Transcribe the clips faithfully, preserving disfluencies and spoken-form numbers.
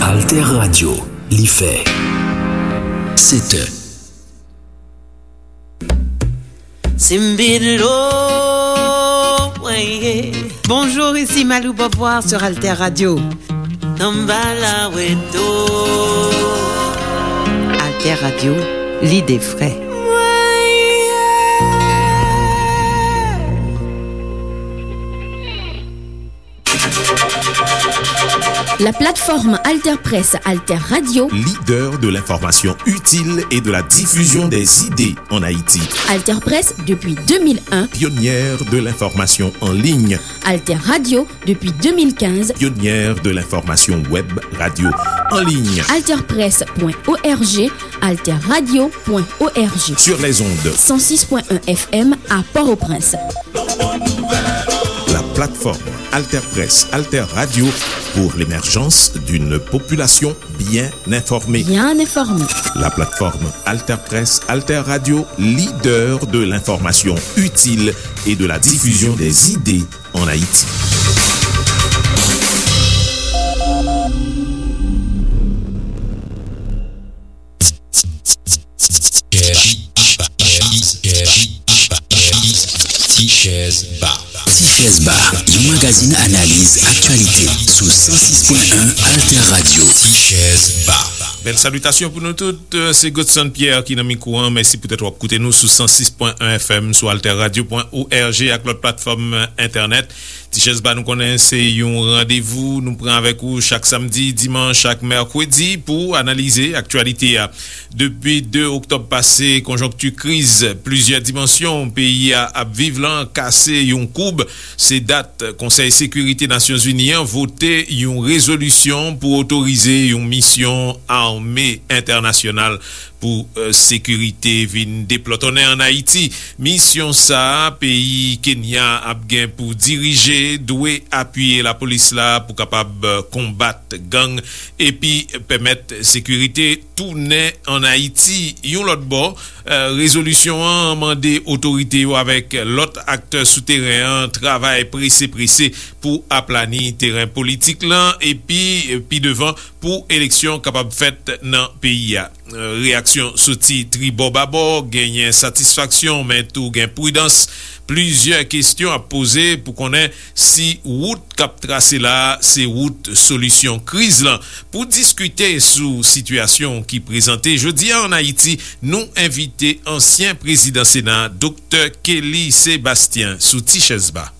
Alter Radio, li fè sèt è. Simbidlo, ouais. Bonjour, ici Malou Beauvoir sur Alter Radio. Samba la weto. Alter Radio, l'idée vraie. La plateforme Alter Presse, Alter Radio. Leader de l'information utile et de la diffusion des idées en Haïti. Alter Presse depuis deux mille un. Pionnière de l'information en ligne. Alter Radio depuis deux mille quinze. Pionnière de l'information web radio en ligne. Alter Presse point O R G, Alter Radio point O R G. Sur les ondes. Cent six point un F M à Port-au-Prince. La plateforme Alter Presse, Alter Radio pour l'émergence d'une population bien informée. Bien informée. La plateforme Alter Presse, Alter Radio, leader de l'information utile et de la diffusion des idées en Haïti. Ti Chèz Ba. Ti Chèz Ba, yon magazin analiz aktyalite sou san sis pwen en Alter Radio. Ti Chèz Ba. Bèl salitasyon pou nou tout. Se Godson Pierre ki nan mikwo an. Mèsi poutèt w ap koute nou sou san sis pwen en F M, sou alter radio point O R G ak lòt platfòm entènèt. Ti Chèz Ba, nou konnen se yon randevou nou pran avèk ou chak samdi, dimanch ak mèkredi pou analize aktyalite a. Depi de oktòb pase, konjonkti kriz plizyè dimansyon peyi a ap viv lan kase yon koub. Se dat Konsèy Sekirite Nasyonzini an vote yon rezolisyon pou otorize yon misyon ame entènasyonal pou, eh, sekirite vin deplòtonnen ann Ayiti. Misyon sa a, peyi Kenya ap gen pou dirije, dwe apiye lapolis la pou kapab, eh, konbat gang epi pèmèt sekirite tounen ann Ayiti. Yon lòt bò, eh, rezolisyon an mande otorite yo avèk lòt aktè sou teren an travay prese prese pou aplani teren politik lan epi, eh, pi devan pou eleksyon kapab fèt nan peyi a. Eh, reyaksyon soti tribò babò, genyen satisfaksyon, men tou gen pridans. Plizyè kesyon ap poze pou konnen si wout k ap trase la a se wout solisyon kriz lan. Pou diskite sou sitiyasyon ki prezante jodi a ann Ayiti, nou envite ansyen prezidan Sena, Doktè Kelly Sébastien, sou Ti Chèz Ba.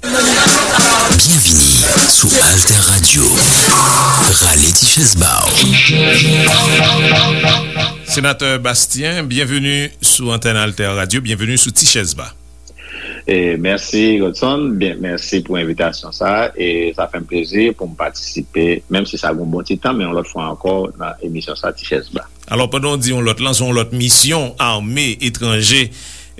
Byenvini sou Alter Radio. Rale ti chèz ba w. Senatè Bastien, byenveni sou antèn Alter Radio, byenveni sou Ti Chèz Ba. E, mèsi, Godson. Byen, mèsi pou envitasyon sa a. E sa fè m plezi pou m patisipe, menm si sa gen yon bon ti tan, men yon lòt fwa ankò nan emisyon sa, Ti Chèz Ba. Alò, pandan w di yon lòt lan, se yon lòt misyon ame etranje,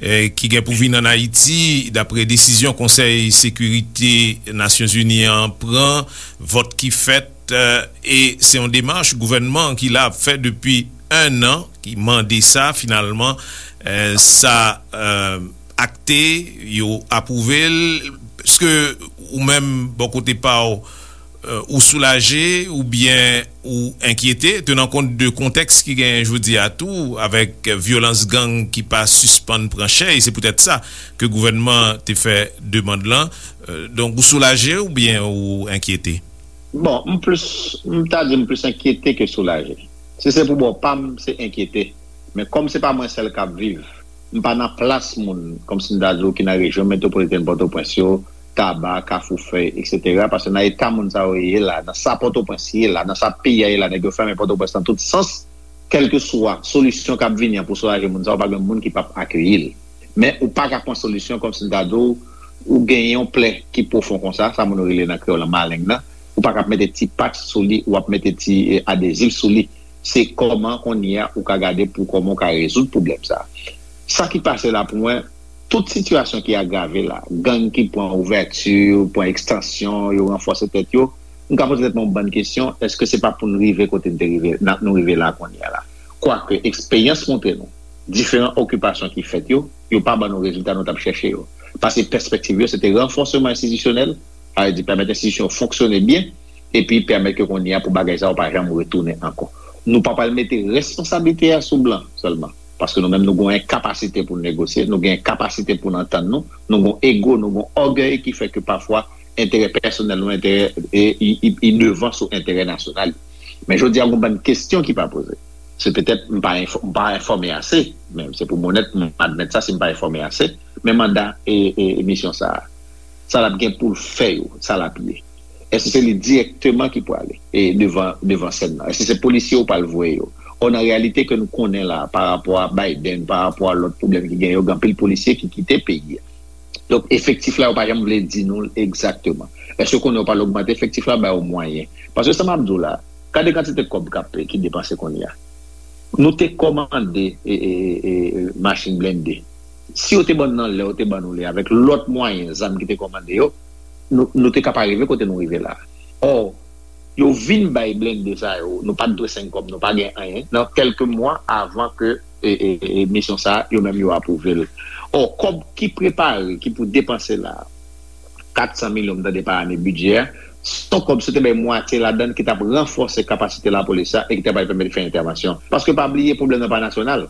eh, ki gen pou vin ann Ayiti, dapre desizyon Konsèy Sekirite Nasyonzini an pran, vòt ki fèt, eh, e se yon demach gouvènman ki la ap fè depi en an, ki mande sa, finalman, eh, sa, eh, akte, yo apwouve l. Èske ou menm, bò kote pa w, eh, ou soulaje oubyen ou enkyete, tenan kont de kontèks ki genyen jodi a tou, avèk vyolans gang ki pa sispann pran chè, e se poutèt sa ke gouvènman te fè demann lan. Eh, donk, ou soulaje oubyen ou enkyete? Bon, m plis, m ta di m plis enkyete ke soulaje. Si se pou bò pa m, se enkyete. Men kòm se pa mwen sèl k ap viv, m pa nan plas moun, kòmsi m ta di w, ki nan rejyon metwopolitèn Pòtoprens yo, Taba, Kafou Fèy, etsetera. Paske nan eta moun sa yo ye la, nan sa Pòtoprens ye la, nan sa peyi a ye la, nèg yo fèmen Pòtoprens nan tout sans, kèlkeswa solisyon k ap vini an pou soulaje moun sa yo, pa gen moun ki p ap akeyi l. Men ou pa ka pran solisyon kòmsi m ta di w, ou genyen yon plè ki pwofon konsa, sa moun yo rele nan kreyòl an maleng nan, ou pa ka ap mete ti patch sou li, ou ap mete ti, eh, adezif sou li. Se kòman kounye a ou ka gade pou kòman ou ka rezoud pwoblèm sa a. Sa ki pase la pou mwen, tout sitiyasyon ki agrave la, gang ki pran ouvèti, pran ekstansyon, yo ranfòse tèt yo, m ka poze tèt mwen yon bann kesyon, èske se pa pou n rive kote n te rive, n ap, nou rive la kounye a la? Kwake, eksperyans montre nou, diferan okipasyon ki fèt yo, yo pa ban nou rezilta nou t ap chèche yo. Paske pèspektiv yo, se te ranfòsman enstitisyonèl, sa vle di pèmèt enstitisyon yo fonksyone byen, epi pèmèt ke kounye a pou bagay sa yo pa janm retounen ankò. Nou pa pral mete responsablite a sou blan sèlman, paske nou menm nou gen yon kapasite pou n negosye, nou gen kapasite pou n antann nou, nou gen ego, nou gen ògèy ki fè ke pafwa enterè pèsonèl nou, enterè e, i, i, i devan sou enterè nasyonal. Men jodi a, gen bann kesyon ki pa poze. Se petèt m pa enfò- m pa enfòme ase, men se pou m onèt, m admèt sa si m pa enfòme ase, men manda e, e, e misyon sa a, sa l ap gen pou l fè yo, sa l ap ye. Èske se li dirèkteman ki prale e devan, devan sèn nan? Èske se polisye yo pral voye yo? Ò, nan reyalite ke nou konnen la, pa rapò a Biden, pa rapò a lòt pwoblèm ki gen yo, gen anpil polisye ki kite peyi a. Donk, efektif la, yo pa janm vle di nou l egzakteman. Èske konnen yo pral ogmante efektif la, ba yo mwayen? Paske sa m ap di w la, gade kantite kòb k ap, ki depanse kounye a. Nou te kòmande e, e, e, e, machin blende. Si yo te ban n nan lè yo te ban nou li avèk lòt mwayen, zam ki te kòmande yo, nou, nou te ka pa rive kote nou rive la. Ò, yo vin bay blende sa yo, nou pa t dwe senk kòb, nou pa gen anyen, nan kèlke mwa avan ke e, e, e, misyon sa a, yo menm yo apwouve l. Ò, kòb ki prepare, ki pou depanse la, kat san milyon, m tande pa ane bidjè a, se yon kòb, si w te bay mwatye ladan l ki t ap ranfòse kapasite lapolis la e ki t ap pèmèt fè entèvansyon. Paske pa bliye, pwoblèm nan pa nasyonal.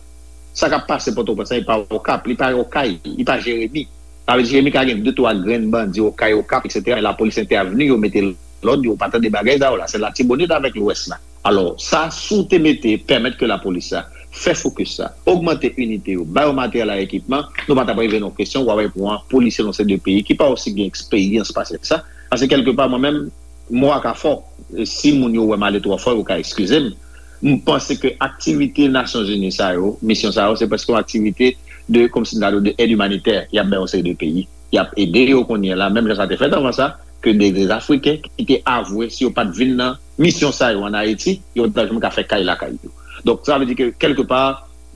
Sa k ap pase Pòtoprens lan, li pa Okap, li pa Okay, li pa Jeremi. Sa vle di Jeremi ka gen de twa grenn bandi Okay, Okap, etsetera, men lapolis entèvni, yo mete lòd, yo pa tande bagay sa yo la. Se Latibonit avèk Lwès la. Alò, sa, si w te mete, pèmèt ke lapolis la fè fokis sa, ogmante inite yo, ba yo materyèl ak ekipman, nou pa t ap rive nan kesyon, w ap wè pou an polisye nan se de peyi ki pa osi gen eksperyans pase sa. Paske kèlkepa, mwen menm, mo a ka fò. E si moun yo wè m ale twò fò, yo ka eskize m. M panse ke aktivite Nasyonzini sa yo, misyon sa yo, se prèske yon aktivite de, kòmsi m ta di w, de èd imanitè. Y ap bay yon seri de peyi. Y ap ede yo kounye a la, menm jan sa te fèt anvan sa, ke de, de Afriken ki te avwe, si yo pa t vin nan misyon sa yo ann Ayiti, yo pa t janm ka fè kay lakay yo. Donk, sa vle di ke, kèlkepa,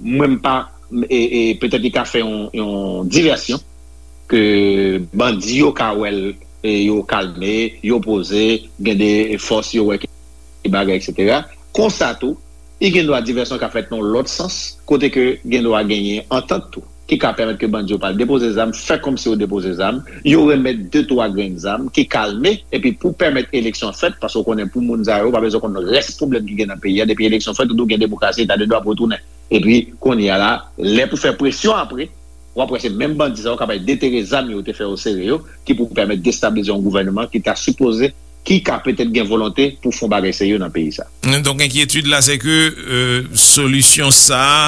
mwen m pa, e, e, petèt li ka fè yon, yon divèsyon, ke bandi yo ka wè l, e, yo kalme, yo poze, gen de fòs yo wè ki bagay, etsetera. Konsa tou, li gen dwa divèsyon ka fèt nan lòt sans, kote ke gen dwa genyen antant tou, ki ka pèmèt ke bandi yo pa al depoze zam, fè kòmsi yo depoze zam, yo remèt de twa grenn zam ki kalme, epi pou pèmèt eleksyon fèt, paske w konnen pou moun sa yo, pa bezwen konn rès pwoblèm ki gen nan peyi a, depi eleksyon fèt, ou tou gen demokrasi, eta de dwa pou retounen. Epi, kounye a la, lè pou fè presyon apre, w ap wè se menm bandi sa yo k ap al detere zam yo te fè yo sere yo, ki pou pèmèt destabilize yon gouvènman ki ta sipoze, ki ka petèt gen volonte pou fè yon bagay serye nan peyi sa. Donk, enkyetid la, se ke, euh, solisyon sa a,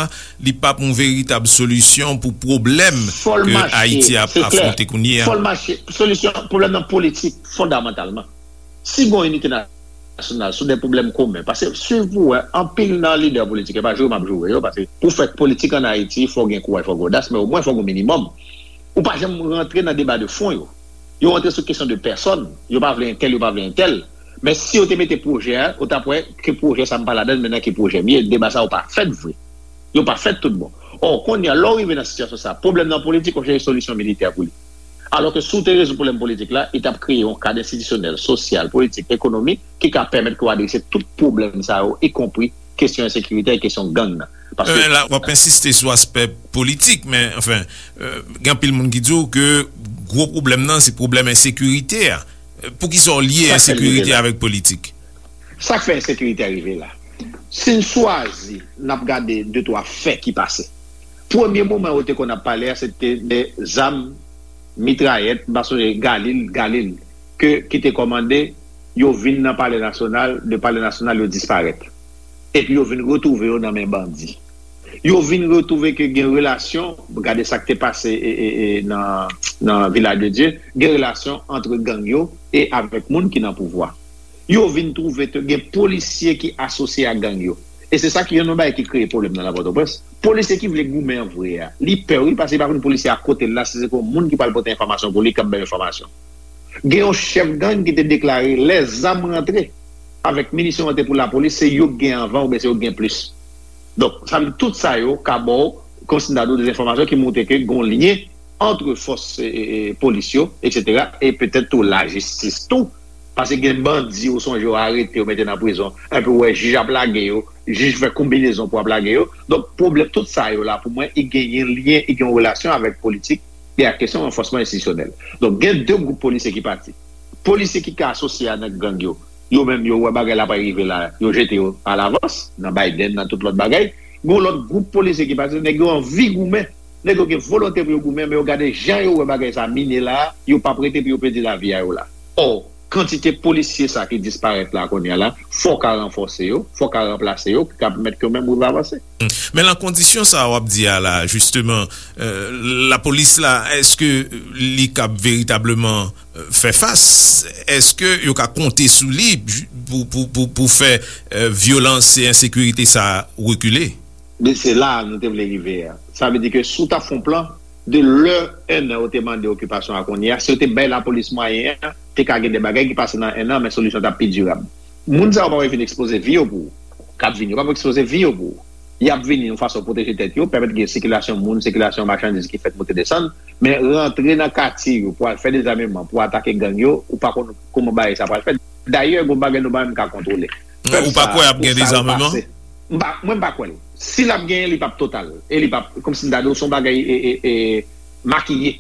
li p ap yon veritab solisyon pou pwoblèm Fò l ke mache, Ayiti ap se klè. Afwonte kounye a. Fò l mache. Solisyon, pwoblèm nan politik, fondamantalman. Si gon inite nasyonal sou de pwoblèm komen, paske swiv pou wè, anpil nan lidè politik, e pa joure m ap joure yo, paske pou fè politik ann Ayiti, fò gen kouraj, fò gen odas, men omwen fò gen minimòm. Ou pa janm rantre nan deba de fon yo. Yo rantre sou kesyon de pèsòn. Yo pa vle entèl, yo pa vle entèl. Men si yo te mete pwojè a, ou t ap wè ke pwojè sa m pa ladan l, men nan ki pwojè m ye, deba sa yo pa fèt vre. Yo pa fèt tout bon. Ò, kounye a, lè w rive nan sitiyasyon sa, pwoblèm nan politik, ou chèche solisyon militè pou li. Alò ke si w te rezoud pwoblèm politik la, li t ap kreye yon kad enstitisyonèl, sosyal, politik, ekonomik, ki ka pèmèt ke w adrese tout pwoblèm sa yo, ikonpri kesyon ensekirite e kesyon gang nan. Paske Men la, w ap ensiste sou aspè politik, men, anfen, euh, gen anpil moun ki di w ke gwo pwoblèm nan, se pwoblèm ensekirite a. Euh, poukisa w lye Sa k fè l rive ensekirite la. Avèk politik? Sa k fè ensekirite a rive la? Si n chwazi, n ap gade de twa fè ki pase. Premye moman yo te konn ap pale a, se te de zam, mitrayèt, m pa sonje Galil, Galil, ke, ki te kòmande, yo vin nan Palè Nasyonal, de Palè Nasyonal, yo disparèt. Epi yo vin retwouve yo nan men bandi. Yo vin retwouve ke gen relasyon, gade sa k te pase, e, e, e, nan, nan Vilaj de Dye, gen relasyon ant gang yo e avèk moun ki nan pouvwa. Yo vin twouve ke gen polisye ki asosye ak gang yo. E se sa ki youn nan bagay ki kreye pwoblèm nan nan Pòtoprens. Polisye ki vle goumen an vre a, li pè wi, paske li pa konn polisye a kote l la, si se pou yon moun ki pral pote enfòmasyon pou li, k ap bay enfòmasyon. Gen yon chèf gang ki te deklare lè zam rantre avèk minisyon rantre pou lapolis, se yo k gen anvan oubyen se yo k gen plis. Donk, sa vle di tout sa yo ka ba w, kòmsi m ta di w, de enfòmasyon ki montre ke gen yon lyen ant fòs e, e, e, polis yo, etsetera, e petèt tou lajistis tou. Paske gen bandi, ou sonje yo arete, yo mete nan prizon. Epi ou wè jij ap lage yo, jij fè konbinezon pou ap lage yo. Donk, pwoblèm, tout sa yo la, pou mwen, i genyen lyen, i gen yon relasyon avèk politik e ak kesyon ranfòsman enstitisyonèl. Donk, gen de gwoup polisye ki pati. Polisye ki ka asosye a nan gang yo, Yo menm, yo wè bagay la pral rive la, yo jete yo alavans, nan Biden, nan tout lòt bagay. Gen yon lòt gwoup polisye ki pase, nèg yo anvi goumen. Nèg yo gen volonte pou yo goumen, men yo gade jan yo wè bagay sa mine la, yo p ap rete pou yo pèdi lavi a yo la. Ò, kantite polisye sa ki disparèt la kounye a la, fò w ka ranfòse yo, fò w ka ranplase yo, ki ka pèmèt ke yo menm rive avanse. Men nan kondisyon sa w ap di a la, jisteman, euh, lapolis la, èske li kab veritableman, euh, fè fas? Èske yo ka konte sou li pou, pou, pou, pou fè, euh, vyolans e ensekirite sa rekile? Men se la nou te vle rive a. Sa vle di ke si w ta fè yon plan, de lè en an yo te mande okipasyon a kounye a, si yo te bay lapolis mwayen an, te ka gen de bagay ki pase nan en an, men solisyon t ap pi dirab. Moun sa yo pa vin ekspoze vi yo pou ou. K ap vini, yo pa vin ekspoze vi yo pou ou. Y ap vini yon fason pwoteje tèt yo, pèmèt gen sikilasyon moun, sikilasyon machandiz ki fèt monte desann, men rantre nan katye yo pou al fè dezameman, pou atake gang yo, ou pa konn kòman bagay sa pral fèt. Dayè, gen bagay nou pa menm ka kontwole. Ou pa kwè ap gen dezameman? M pa, mwen m pa kwè l. Si l ap genyen, li p ap total. E li p ap, kòmsi m ta di w, se yon bagay e, e, e, makiye.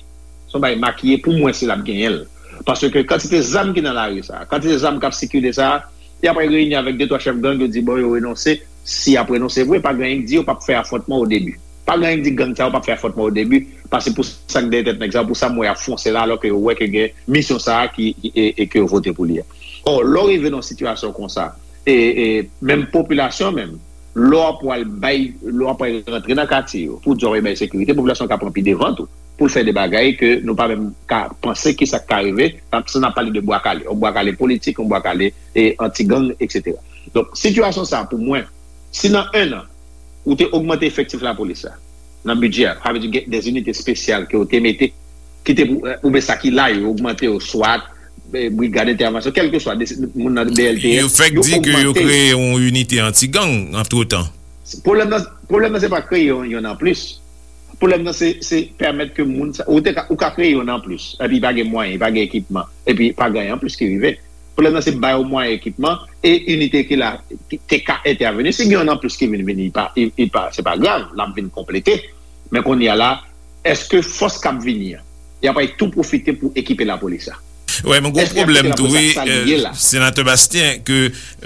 Se yon bagay makiye pou mwen si l ap genyen l. Paske kantite zam ki nan lari sa, kantite zam k ap sikile sa, y ap reyini avèk de twa chèf gang, yo di bon, yo renonse. Si y ap renonse vre, pa gen anyen k di yo p ap fè afwontman o debi. Pa gen anyen k di gang sa yo p ap fè afwontman o debi, paske pou sa k dèyè tèt nèg sa yo, pou sa m wè y ap fonse la, alò ke yo wè ke gen misyon sa a ki, ki, e, e ke yo vote pou li a. Ò, lè w rive nan yon sitiyasyon konsa, e, e, menm popilasyon menm, lè w ap pral bay, lè w ap pral rantre nan katye yo, pou di w ap bay sekirite, popilasyon ka pran pi devan tou, pou l fè de bagay ke nou pa menm ka panse ki sa k ka rive, sa n ap pale de bwa kale, yon bwa kale politik, yon bwa kale, e, anti-gang, etsetera. Donk, sitiyasyon sa a, pou mwen, si nan en an, ou te ogmante efektif lapolis la, nan bidjè a, sa vle di gen de zinite espesyal ke ou te mete, ki te pou, oubyen sa ki la, yo ogmante yo, swat, eh, brigad entèvansyon, kèlkeswa, de, moun nan B L T S, yo fèk di ke yo kreye yon inite anti-gang antretan. Pwoblèm nan, pwoblèm nan se pa kreye yon, yon anplis. Pwoblèm nan se, se pèmèt ke moun sa, ou te ka, ou ka kreye yon anplis, epi pa gen mwayen, pa gen ekipman, epi pa gen anyen anplis ki rive. Pwoblèm nan se ba yo mwayen, ekipman, e inite ki la, ki te ka entèveni. Si gen yon anplis ki vin vini, li pa, li, li pa, se pa grav, l ap vin konplete. Men kounye a la, èske fòs k ap vini an, y ap tou pwofite pou ekipe lapolis la? Wè, men gwo pwoblèm tou, wi, euh, Senatè Bastien, ke,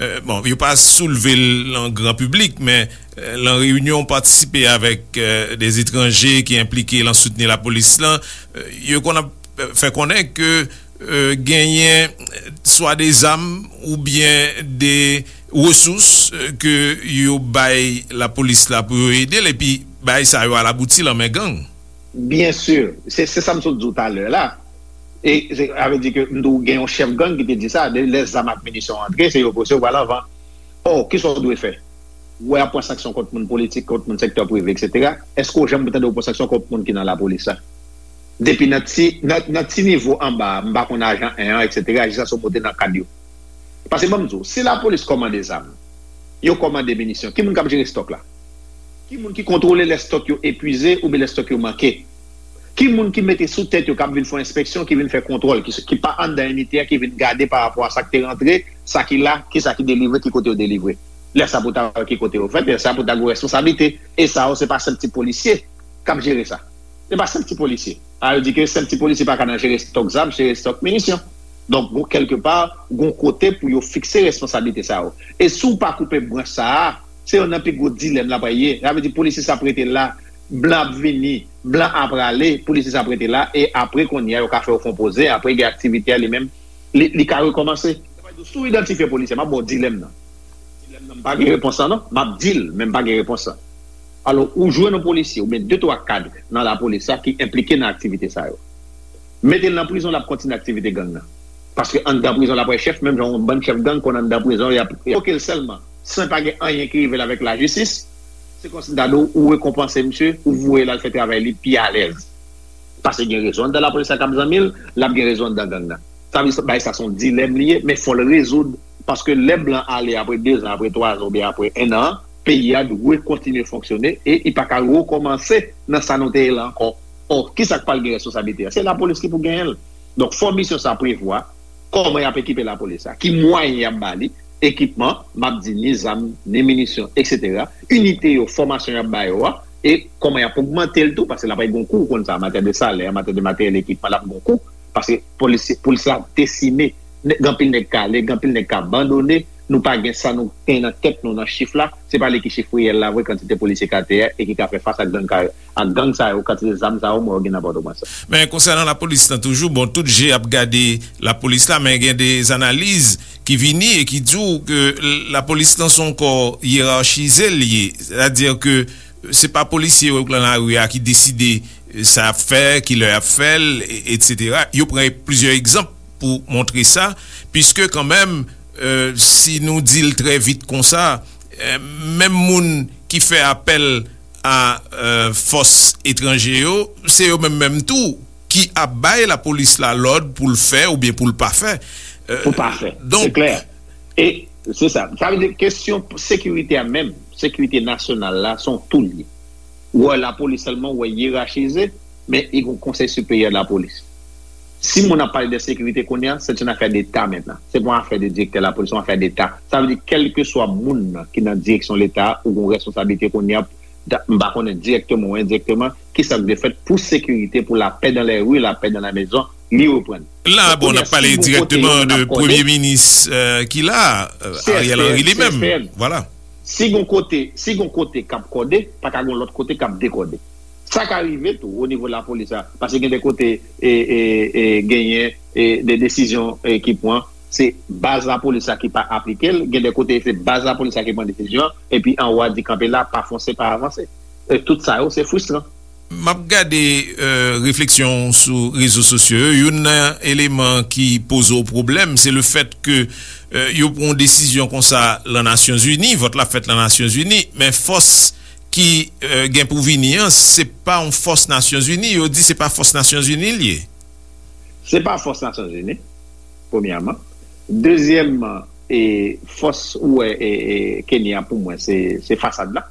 euh, bon, yo pa soulve l nan gran piblik, men, euh, nan reyinyon, patisipe avèk, euh, de etranje ki enplike nan soutni lapolis lan, euh, yo konn ap, euh, fè konnen ke, euh, genyen, euh, swa de zam oubyen de resous, euh, ke yo bay lapolis la pou yo ede l, epi bagay sa yo al abouti nan men gang. Byen si, se, se sa m sot di w talè la. E se, sa vle di ke m di w gen yon chèf gang ki te di sa, de lè zam ak minisyon antre, se yo pwese yo pral anvan. Ò, kisa w dwe fè? Ou wè y ap pran sanksyon kont moun politik, kont moun sektè prive, etsetera. Èske w janm tande yo pran sanksyon kont moun ki nan lapolis la? Depi nan ti, nan, nan ti nivo anba a, m pa konn ajan en an, etsetera, jiskaske w monte nan kad yo. Paske ban m di w, si lapolis kòmande zam, yo kòmande minisyon, ki moun k ap jere stòk la? Ki moun ki kontwole lè stòk yo epwize oubyen lè stòk yo manke? Ki moun ki mete sou tèt yo k ap vin fè enspeksyon, ki vin fè kontwòl, ki, ki pa anndan inite a, ki vin gade pa rapò a sa k te rantre, sa ki la, kisa ki delivre, ki kote yo delivre? Lè sa pou ta wè ki kote yo fèt, lè sa pou ta gen responsablite. E sa yo, se pa senp ti polisye k ap jere sa. Se pa senp ti polisye. A, yo di ke senp ti polisye pa ka nan jere stòk zam, jere stòk minisyon. Donk, gon, kèlkepa, gon kote pou yo fikse responsablite sa yo. E si w pa koupe branch sa a, se youn nan pi gwo dilèm la pral ye. Sa vle di polisye sa ap rete la, blan ap vini, blan ap prale, polisye sa ap rete la, e apre kounye a, yo ka fè yo fè yon poze, apre gen aktivite a li menm, li, li ka rekòmanse. Sa vle di, si w idantifye polisye, m ap ba w dilèm nan. Dilèm nan, m pa gen repons lan non, m ap di l, men m pa gen repons lan. Alò, ou jwenn yon polisye, oubyen de twa kad nan lapolis la ki enplike nan aktivite sa yo. Mete l nan prizon, l ap kontinye aktivite gang nan. Paske anndan prizon, l ap wè chèf, menm jan yon bann chèf gang konn anndan prizon, y ap revoke l sèlman, san pa gen anyen ki rive l avèk lajistis. Se kòmsi m ta di w, ou rekonpanse misye, ou voye l al fè travay li pi alèz. Paske gen rezo anndan lapolis la k ap zanmi l, l ap gen rezo anndan gang nan. Sa vle di, bagay sa se yon dilèm li ye, men fò l rezoud. Paske lè blan ale apre dezan, apre twazan oubyen apre en an, peyi a dwe kontinye fonksyone e li pa ka rekòmanse nan sa nou te ye la ankò. Ò, kisa k pral gen responsablite a? Se lapolis ki pou genyen l. Donk, fò misyon sa prevwa kòman y ap ekipe lapolis la, ki mwayen y ap ba li, ekipman, m ap di ni zam, ni minisyon, etsetera. Inite yo, fòmasyon y ap ba yo a, e kòman y ap ogmante l tou, paske l ap gen yon kou, ou konn sa, an matyè de salè, an matyè de materyèl, ekipman, l ap gen yon kou, paske polis, polis la desine Gen anpil nèg k ale, gen anpil nèg k abandone. Nou pa gen sa nou gen nan tèt nou nan chif la. Se pa li ki chif reyèl la vre, kantite polisye k atè a e ki ka fè fas ak gang, ak gang sa yo, kantite zam sa yo, mwen yo gen nan Pòtoprens. Men konsènan lapolis lan toujou, bon, tout je ap gade lapolis la, men gen de analiz ki vini e ki di w ke lapolis lan se yon kò yerachize l ye. Sètadi ke se pa polisye yo k lan lari a ki deside sa y ap fè, kilè y ap fè l, etsetera. Yo pran plizyè egzanp pou montre sa, piske kanmenm, si nou di l trè vit konsa, menm moun ki fè apèl a fòs etranje yo, se yo menm menm tou ki ap bay lapolis la lòd pou l fè oubyen pou l pa fè. Pou pa fè. Se klè. E se sa. Sa vle di kesyon sekirite a menm, sekirite nasyonal la, se yon tou l ye. Ou wè lapolis sèlman, ou wè yerachize, men li gen yon konsèy siperyè de lapolis. Si moun ap pale de sekirite kounye a, se yon afè deta mentnan. Se pa yon afè de direktè lapolis, se yon afè deta. Sa vle di kèlkeswa moun nan ki nan direksyon leta ou gen yon responsablite kounye a, m pa konnen direkteman ou endirekteman, kisa k dwe fèt pou sekirite, pou lapè dan lè ri, lapè dan la mezon, li reprann. La, bon, n ap pale direkteman de premye minis ki la, Ariel Henry li menm. Vwala. Si gon kote, si gon kote k ap kòde, pa ka gon lòt kote k ap dekòde. Sa ka rive tou o nivo lapolis la, paske gen de kote e, e, e, genyen e, de desizyon e, ki pran, se baz lapolis la ki pa aplike l, gen de kote se baz lapolis la ki pran desizyon an, epi anwo a di kanpe la, pa fonse, pa avanse. E tout sa yo, se fristran. M ap gade refleksyon w sou rezo sosyo yo. Youn nan eleman ki poze w pwoblèm, se lefèt ke yo pran yon desizyon konsa lan Nasyonzini, vòt la fèt lan Nasyonzini, men fòs ki gen pou vini an, se pa yon fòs Nasyonzini. Yo di se pa fòs Nasyonzini l ye. Se pa fòs Nasyonzini, premyèman. Dezyèmman, e fòs ou wè e, e, Kenya pou mwen se, se fasad la.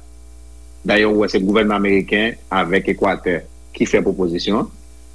Dayè ou wè se gouvènman ameriken avèk Ekwatè ki fè pwopozisyon an.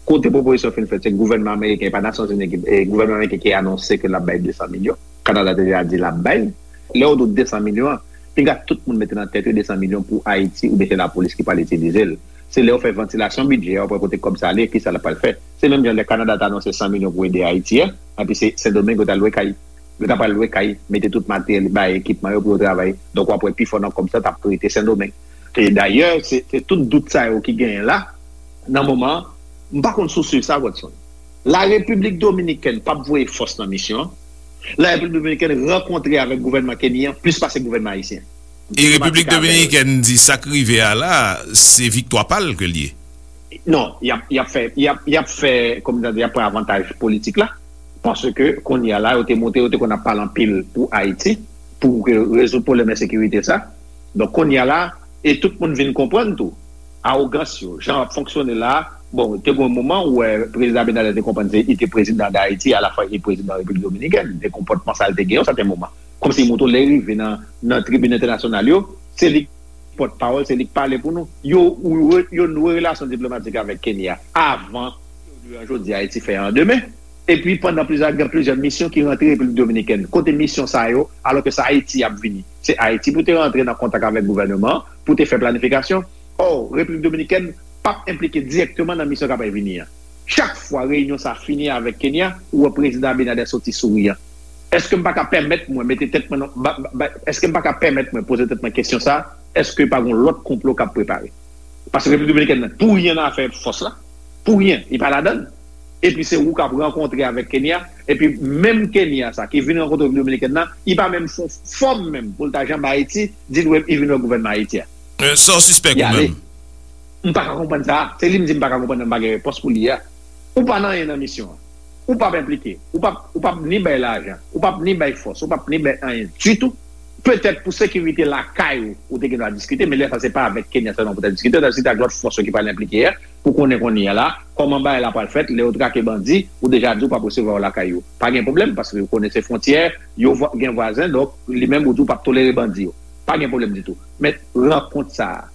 Kote pwopozisyon fin fèt, se gouvènman ameriken, e pa Nasyonzini ki, e gouvènman ameriken ki anonse ke l ap bay de san milyon. Kanada te deja di l ap bay. Lè yo di w de san milyon an, pinga tout moun mete nan tèt yo de san milyon pou Ayiti oubyen se lapolis ki pral itilize l. Se lè yo fè vantilasyon bidjè a, yo pral kote kòb sa ale, kisa l pral fè. Se menm jan lè Kanada t anonse san milyon pou ede Ayiti a, epi se Sendomeng yo t al lwe kay. Yo t ap al lwe kay, mete tout materyèl, bay ekipman yo pou yo travay. Donk w ap wè pifò nan kòb sa t ap rete Sendomeng. E dayè, se, se tout dout sa yo ki genyen la, nan moman an, m pa konn si w swiv sa, Godson. Larepiblik Dominikèn p ap voye fòs nan misyon an. Larepiblik Dominikèn rankontre avèk gouvènman kenyan plis pase gouvènman ayisyen. E Repiblik Dominikèn di sa k rive a la, se viktwa pa l ke l ye. Non, y ap, y ap fè, y ap, y ap fè, kòm nan di, y ap pran avantaj politik la. Paske kounye a la, yo te montre, yo te konn ap pale anpil pou Ayiti, pou ke rezoud pwoblèm ensekirite sa. Donk kounye a la, e tout moun vin konprann tou, awogans yo, jan yo ap fonksyone la, bon, te gen yon moman ou wè prezidan Abinader te konprann se li te prezidan Dayiti, alafwa li te prezidan Repiblik Dominikèn, de konpòtman sa l te gen yon sèten moman. Kòmsi li montre w lè l rive nan, nan tribin entènasyonal yo, se li ki pòtpawòl, se li k pale pou nou. Yo, yo, yo noure relasyon diplomatik avèk Kenya avan yo jodi Ayiti fè an demen. Epi pandan plizyè, gen plizyè misyon ki rantre Repiblik Dominikèn. Kote misyon sa yo, alò ke se Ayiti y ap vini. Se Ayiti pou te rantre nan kontak avèk gouvènman an, pou te fè planifikasyon. Ò, Repiblik Dominikèn p ap enplike dirèkteman nan misyon k ap vini an. Chak fwa reyinyon sa fini avèk Kenya, ou wè prezidan Abinader soti souriyan. Èske m pa ka pèmèt mwen mete tèt mwen nan, ba, ba, èske m pa ka pèmèt mwen poze tèt mwen kesyon sa, èske pa gon lòt konplo k ap prepare? Paske Repiblik Dominikèn nan, pou ryen nan afè fòs la, pou ryen, li pa ladan l. Epi se ou k ap rankontre avèk Kenya, epi menm Kenya sa ki vin rankontre Repiblik Dominikèn nan, li pa menm fè yon fòm menm pou l ta janbe Ayiti, di l wè, li vin wè gouvènman Ayiti a. Sa w sispèk ou menm? M pa ka konprann sa. Se li m di m pa ka konprann nan m pa gen repons pou li a. Ou pa nan anyen nan misyon an. Ou p ap enplike. Ou p ap, ou p ap ni bay lajan. Ou p ap ni bay fòs. Ou p ap ni bay anyen ditou. Petèt pou sekirite lakay ou, ou te gen dwa diskite, men lè sa se pa avèk Kenya sèlman pou ta diskite, ou ta diskite ak lòt fòs yo ki pral enplike a, pou konnen kounye a la, kòman bagay la pral fèt, lè yo trake bandi, ou deja di ou p ap resevwa yo lakay ou. Pa gen pwoblèm, paske ou konnen se fwontyè, yo gen vwazen, donk li menm ou di ou p ap tolere bandi yo. Pa gen pwoblèm ditou. Men rankont sa a,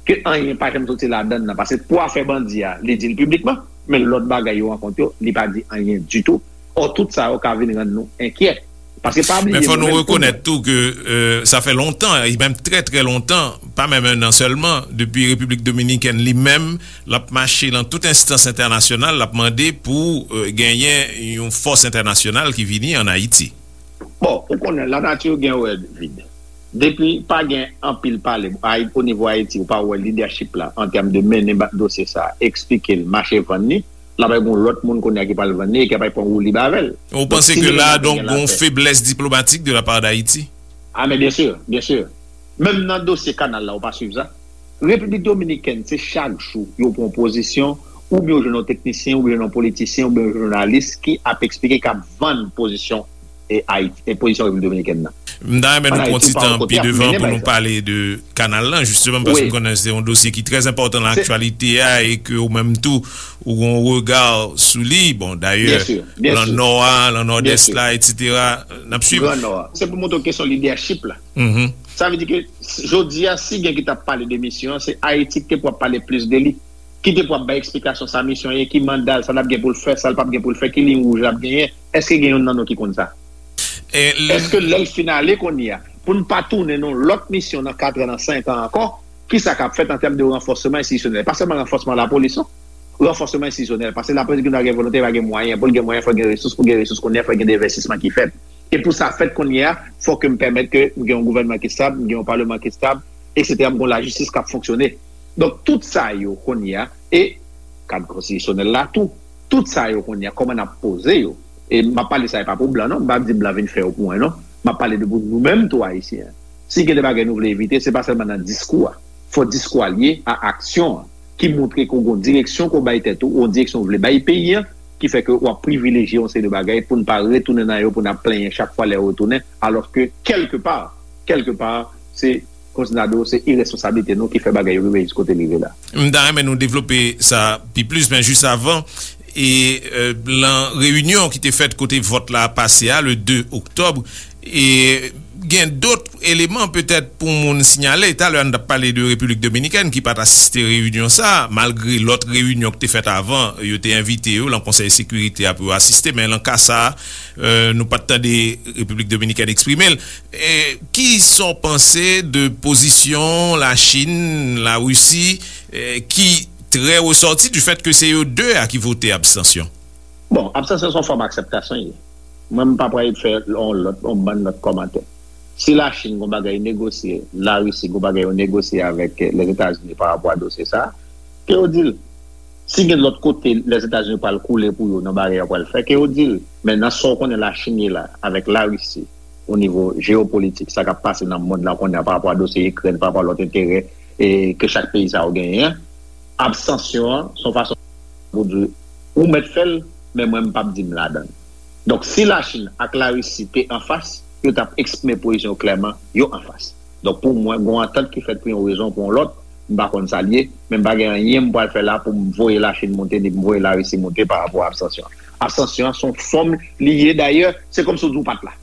ke anyen pa janm soti ladan l nan, paske pou afè bandi a, li di l piblikman, men lòt bagay yo rankont yo, li pa di anyen ditou. Ò, tout sa yo ka vin rann nou enkyè. Paske pa bliye, men fò nou rekonèt tou ke sa fè lontan, e menm trè, trè lontan, pa menm en an sèlman, depi Repiblik Dominikèn li menm, l ap mache nan tout enstans entènasyonal, l ap mande pou genyen yon fòs entènasyonal ki vini ann Ayiti. Bon, ou konnen, lanati gen wè vid. Depi pa gen anpil pale o nivo Ayiti, ou pa wè lidèchip la an tèm de mennen dosye sa, eksplike l, mache vann li, l ap gen yon lòt moun kounye a ki pral vann li e ki ap pran woulib avè l. Ou panse ke la, donk, gen yon feblès diplomatik de la part d'Haïti? Ah, men byen si, byen si. Menm nan dosye kanal la, ou pa swiv sa? Repiblik Dominikèn, se chak jou yo pran pozisyon, oubyen yo jwenn yon teknisyen, oubyen yon politisyen, oubyen yon jounalis ki ap eksplike, k ap vann pozisyon e Ayiti, e pozisyon Repiblik Dominikèn nan. M ta renmen nou pran ti tan pi devan pou nou pale de kanal lan, jisteman, paske m konnen se yon dosye ki trè enpòtan nan aktyalite a e ke ou menm tou, ou gen yon rega sou li. Bon, dayè, lan Nò a, lan Nòdès la, etsetera. N ap swiv. Gran Nò a. Se pou montre w kesyon lidèchip la. Sa vle di ke jodi a, si gen ki t ap pale de misyon an, se Ayiti ki te pou ap pale plis de li. Ki te pou ap bay eksplikasyon sa misyon ye, ki manda l, sa l ap gen pou l fè, sa l p ap gen pou l fè, ki liy wouj l ap genyen. Èske gen youn nan nou ki konn sa? Èske lè l fin ale kounye a, pou n pa tounen nan yon lòt misyon nan kat an, nan senk an ankò, kisa k ap fèt an tèm de ranfòsman enstitisyonèl? Pa sèlman ranfòsman lapolis, non. Ranfòsman enstitisyonèl, paske lapolis gen dwa gen volonte, pa gen mwayen. Pou l gen mwayen, fò l gen resous, pou l gen resous kounye a, fò l gen envèstisman ki fèt. E pou sa fèt kounye a, fò ke m pèmèt ke m gen yon gouvènman ki estab, m gen yon paleman ki estab, etsetera, m gen yon lajistis k ap fonksyone. Donk, tout sa yo kounye a, e kad konstitisyonèl la tou, tout sa yo kounye a, kòman n ap poze yo? E m ap pale sa, e pa pou blan, non, m p ap di blan vin fè yo pou mwen, non. M ap pale de pou nou menm tou, Ayisyen. Si gen de bagay nou vle evite, se pa sèlman nan diskou a. Fò diskou a lye a aksyon an, ki montre ke w gen yon direksyon ke w bay tèt ou, yon direksyon w vle bay peyi an, ki fè ke w ap privilejye yon seri de bagay pou n pa retounen nan yo, pou n ap plenyen chak fwa lè yo retounen, alòske kèlkepa, kèlkepa, se, kòmsi n ta di w, se iresponsablite nou ki fè bagay yo rive jis kote l rive la. M ta renmen nou devlope sa pi plis, men jis avan, e, e, lan reyinyon ki te fèt kote vòt la pase a, le de oktòb, e gen dòt eleman petèt pou moun siyale. Talè a n t ap pale de Repiblik Dominikèn ki pa t asiste reyinyon sa a, malgre lòt reyinyon ki te fèt avan, yo te envite yo lan Konsèy Sekirite a pou yo asiste, men lan ka sa a, e, nou pa t tande Repiblik Dominikèn eksprime l. E, kisa w panse de pozisyon Lachin, Larisi, e, ki trè resòti du fèt ke se yo de a ki vote abstansyon? Bon, abstansyon se yon fòm akseptasyon ye. Mwen, m pa pral fè yon lòt, yon bann lòt kòmantè. Si Lachin gon bagay negosye, Larisi gon bagay yo negosye avèk, eh, Lèzetazini pa rapò a dosye sa a, ke yo di l. Si gen lòt kote Lèzetazini pral koule pou yo nan bagay yo pral fè, ke yo di l. Men nan sa w konnen Lachin ye la, avèk Larisi, o nivo jeyopolitik, sa k ap pase nan mond lan kounye a pa rapò a dosye Ikrèn, pa rapò a lòt enterè, eh, ke chak peyi sa yo genyen an, abstansyon an, se yon fason pou di, ou mèt fè l, men mwen m p ap di m ladan l. Donk, si Lachin ak Larisi te anfas, yo t ap eksprime pozisyon yo klèman, yo anfas. Donk, pou mwen, gen yon antant ki fèt pou yon rezon ou pou yon lòt, m pa konn sa l ye, men m pa gen anyen m pral fè la pou m voye Lachin monte, ni pou m voye Larisi monte pa rapò a abstansyon an. Abstansyon an se yon fòm li ye, dayè, se kòmsi w di w pa t la.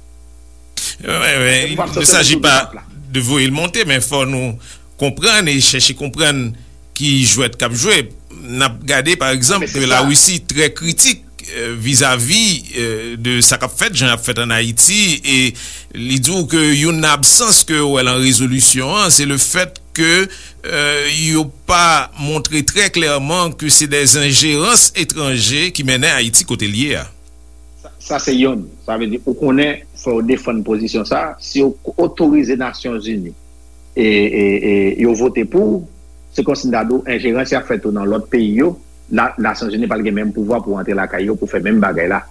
Wi, wi. Il ne s'agit pas de voye l monte, men fò nou konprann e chèche konprann ki jwèt k ap jwe. N ap gade, pa egzanp, ke Larisi trè kritik, eh, vizavi, eh, de sa k ap fèt, jan y ap fèt ann Ayiti, e li di w ke youn nan absans ke w wè lan rezolisyon an, se le fèt ke, eh, yo pa montre trè klèman ke se dè enjerans etranje ki mennen Ayiti kote l ye a. Sa, sa se yonn. Sa vle di, ou konnen, fò w defann pozisyon sa. Si yo otorize Nasyonzini e, e, e yo vote pou, se kòmsi m ta di w, enjerans y ap fè tou nan lòt peyi yo, la, Nasyonzini pa t gen menm pouvwa pou antre lakay yo pou fè menm bagay la.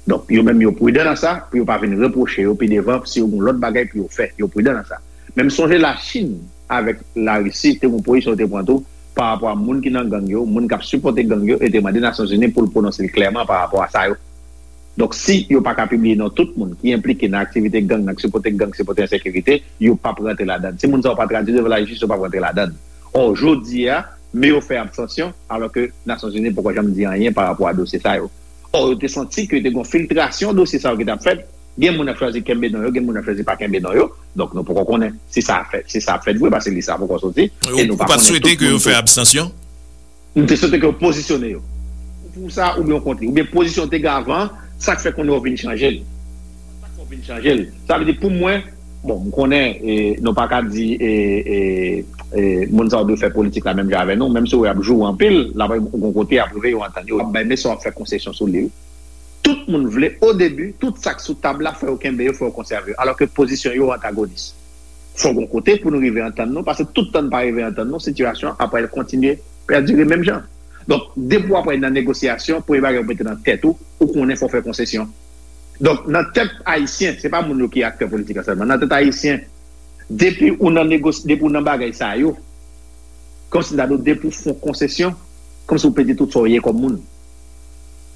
Donk, yo menm yo pridan nan sa, pou yo pa vin repwoche yo pi devan si yo gen lòt bagay pou yo fè. Yo pridan nan sa. Men m sonje Lachin avèk Larisi te gen yon pozisyon yo te pran tou pa rapò a moun ki nan gang yo, moun k ap sipòte gang yo, e te mande Nasyonzini pou l pwononse l klèman pa rapò a sa yo. Donk, si yo pa ka pibliye non tout moun ki enplike nan aktivite gang, nan sipòte gang, sipòte ensekirite, yo p ap rantre ladan l. Si moun sa yo pa tradui devan lajistis, yo p ap rantre ladan l. Ò, jodi a, men yo fè abstansyon, alò ke Nasyonzini poko janm di anyen pa rapò a dosye sa yo. Ò, yo te santi ke te gen yon filtrasyon dosye sa yo ki t ap fèt. Gen moun ap chwazi kenbe non yo, gen moun ap chwazi pa kenbe non yo. Donk, nou poko konnen si sa ap fèt, si sa ap fèt vre, paske lis la poko soti. E nou pa konnen tout moun tou. Ou pa t swete ke yo fè abstansyon? M te swete ke yo pozisyone yo. Pou sa, oubyen w kont li. Oubyen pozisyon w te gen avan, sa k fè kounye a w vin chanje l. Vin chanje l. Sa vle di pou mwen, bon, m konnen e, nou pa ka di e, e, e, moun sa yo dwe fè politik la menm jan avè nou, menm si w ap joure anpil, l ap gon kote y ap rive yo antann yo, y ap bay mesye w ap fè konsesyon sou li. Tout moun vle, o debi, tout sa k sou tab la, fò yo kenbe yo, fò yo konsève yo, alò ke pozisyon yo antagonis. Fò gon kote pou nou rive antann nou, paske tout tan n pa rive antann nou, sitiyasyon ap pral kontinye pèdire menm jan. Donk, depi w ap nan negosyasyon, premye bagay ou mete nan tèt ou, ou konnen fò w fè konsesyon. Donk, nan tèt ayisyen, se pa moun yo ki aktè politik la sèlman, nan tèt ayisyen, depi ou nan negos, depi ou nan bagay sa yo, kòmsi m ta di w, depi w fè yon konsesyon, kòmsi w pèdi tout sa w ye kòm moun.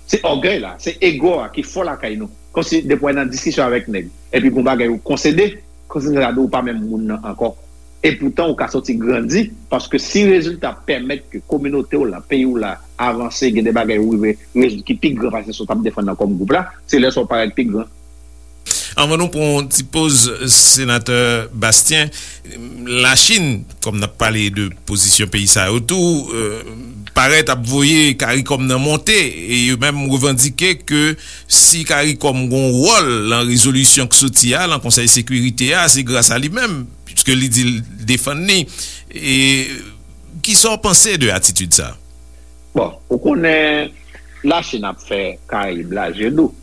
Se ògèy la, se ego a ki fò lakay nou. Kòmsi depi w nan diskisyon avèk nèg, epi gon bagay ou konsede, kòmsi m ta di w pa menm moun nan ankò. Epoutan, ou ka soti grandi, paske si rezilta pèmèt ke kominote w la, peyi w la, avanse, gen de bagay ou rive rezoud ki pi gran pase sa w t ap defann nan kòm gwoup la, se lè sa w parèt pi gran. Anvan nou pran yon ti poz, Senatè Bastien, Lachin, kòm n ap pale de pozisyon peyi sa yo tou, euh, parèt ap voye Karikòm nan monte, e yo menm revandike ke si Karikòm gon wòl lan rezolisyon k soti a, lan Konsèy Sekirite a, se gras a li menm, piske li di l defann li. E kisa w panse de atitid sa? Bon, ou konnen Lachin ap fè Karayib la je dou.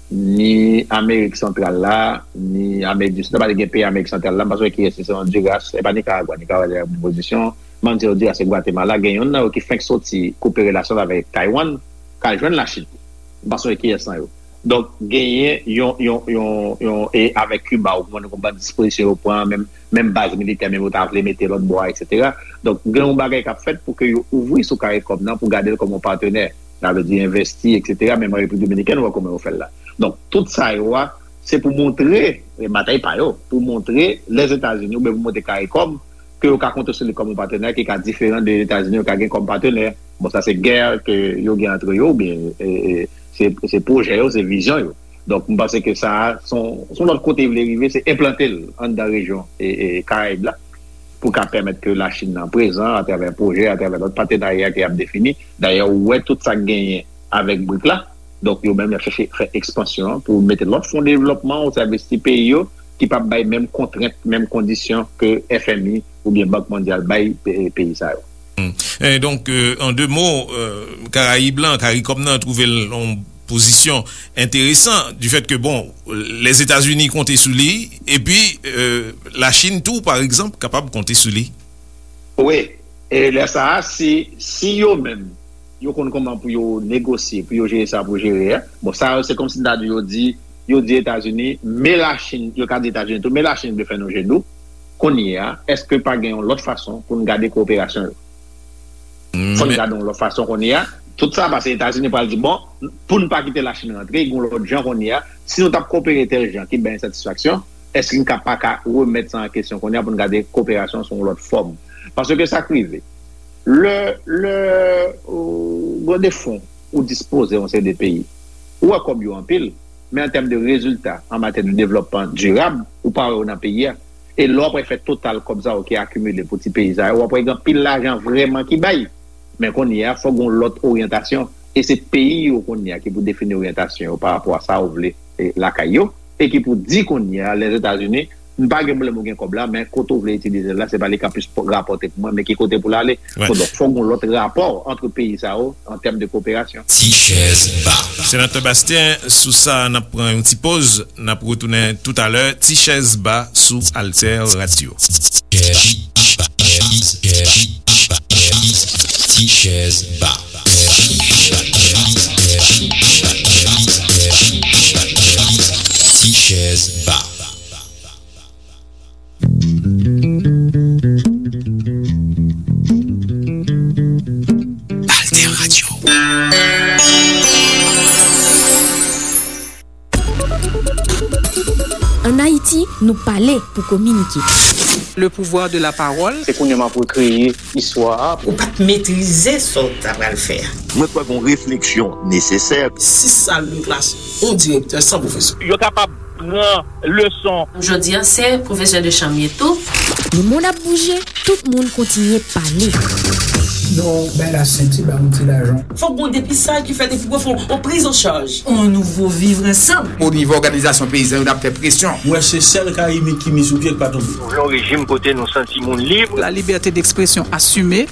Ni Amerik Santral la, ni Amerik di Sid la, pa t gen peyi Amerik Santral la, m pa sonje kiyès, se Honduras, e pa Nikaragwa, Nikaragwa te nan bon pozisyon, m ann di Honduras e Gwatemala, gen youn nan yo ki fenk soti koupe relasyon l avèk Taiwan, k al jwenn Lachin. M pa sonje kiyès nan yo. Donk, genyen yon, yon, yon, yon, e avèk Kiba, ou konprann konbyen dispozisyon yo pran, menm, menm baz militè, menm yo ta vle mete lòt bò a, etsetera. Donk, gen yon bagay k ap fèt pou ke yo ouvri sou Karikòm nan, pou gade l kòm yon patnè. Sa vle di envesti, etsetera. Menm an Repiblik Dominikèn, ou wè kòman yo fè l la. Donk, tout sa yo a, se pou montre, e batay pa yo, pou montre Lèzetazini, oubyen pou montre Karikòm, ke yo ka konte sou li kòm yon patnè ki ka diferan de Etazini yo ka gen kòm patnè. Bon, sa se gè ke yo gen antre yo, oubyen e, e, se, se pwojè yo, se vizyon yo. Donk, m panse ke sa a, se yon, se yon lòt kote li vle rive, se enplante l anndan rejyon e, e, Karayib la, pou ka pèmèt ke Lachin nan prezan atravè pwojè, atravè lòt patenarya ke y ap defini. Dayè, ou wè tout sa k genyen avèk brik la. Donk, yo menm, y ap chèche fè ekspansyon an pou mete lòt fon devlòpman o sèvis ti peyi yo, ki p ap bay menm kontrent, menm kondisyon ke F M I oubyen Bank Mondyal bay pe- peyi sa yo. E donk, euh, an de mo, euh, Karayib lan, Karikòm nan twouve l yon pozisyon enteresan, du fait que, bon, Lèzetazini konte sou li, epi euh, Lachin tou, pa egzanp, kapab konte sou li. Wi, e lè sa a, si, si yo menm, yo konn kòman pou yo negosye, pou yo jere sa pou jere a. Bon, sa yo, se kòmsi m ta di yo di, yo di Etazini, men Lachin, yo ka di Etazini tou, men Lachin vle fè nou je dou. Kounye a, èske pa gen yon lòt fason pou n gade kowoperasyon yo? Fò n gade yon lòt fason kounye a. Tout sa, paske Etazini pral di, bon, pou n pa kite Lachin rantre, gen yon lòt jan kounye a. Si nou t ap kowopere tèl jan ki bay ensatisfaksyon, èske n ka pa ka remèt sa an kesyon kounye a pou n gade koperasyon sou yon lòt fòm? Paske sa k rive. Lè, lè ou gen de fon ou dispoze yon seri de peyi, ou wè kòb yo anpil, men an tèm de rezilta, an matyè de devlòpman dirab, ou pa wè yo nan peyi a. E lè w ap fè total kòb sa yo ki akimile pou ti peyi sa yo, w ap wè gen anpil lajan vrèman ki bay. Men kounye a, fòk gen yon lòt oryantasyon. E se peyi yo kounye a ki pou defini oryantasyon yo pa rapò a sa yo vle e, lakay yo. E ki pou di kounye a, Lèzetazini, m pa gen pwoblèm ou gen kòb la, men kote w vle itilize l la, se pa li k ap plis rapòte pou mwen, men ki kote pou l ale. Bon, donk, fòk gen yon lòt rapò ant peyi sa yo an tèm de koperasyon. Ti chèz ba. Senatè Bastien, sou sa, n ap pran yon ti poz. N ap retounen toutalè. Ti chèz ba sou Alter Radio. Ti chèz ba. Ti chèz ba. Alter Radio. Ann Ayiti, nou pale pou kominike. Le pouvoir de la parole. Se kounye a m ap rekreye istwa a. Ou pa t metrize sa w ta pral fè a. Mwen kwè gen yon refleksyon nesesè. Sis sal de klas, yon direktè san pwofesè. Yo kapab pran leson. Jodi a, se pwofesè de chanm m ye tou. Lemonn ap bouje, tout moun kontinye pale. Yon bay la senti, ba yon ti lajan. Fòk gon depistaj ki fèt epi pou fè yon priz an chaj. On nouvo vivre ansanm. O nivo òganizasyon peyizan yo, n ap fè presyon. Mwen se sèl Karibik ki mi sou pye k pa tonbe. Nou vle yon rejim kote nou santi moun lib. La liberté d'expression assumée.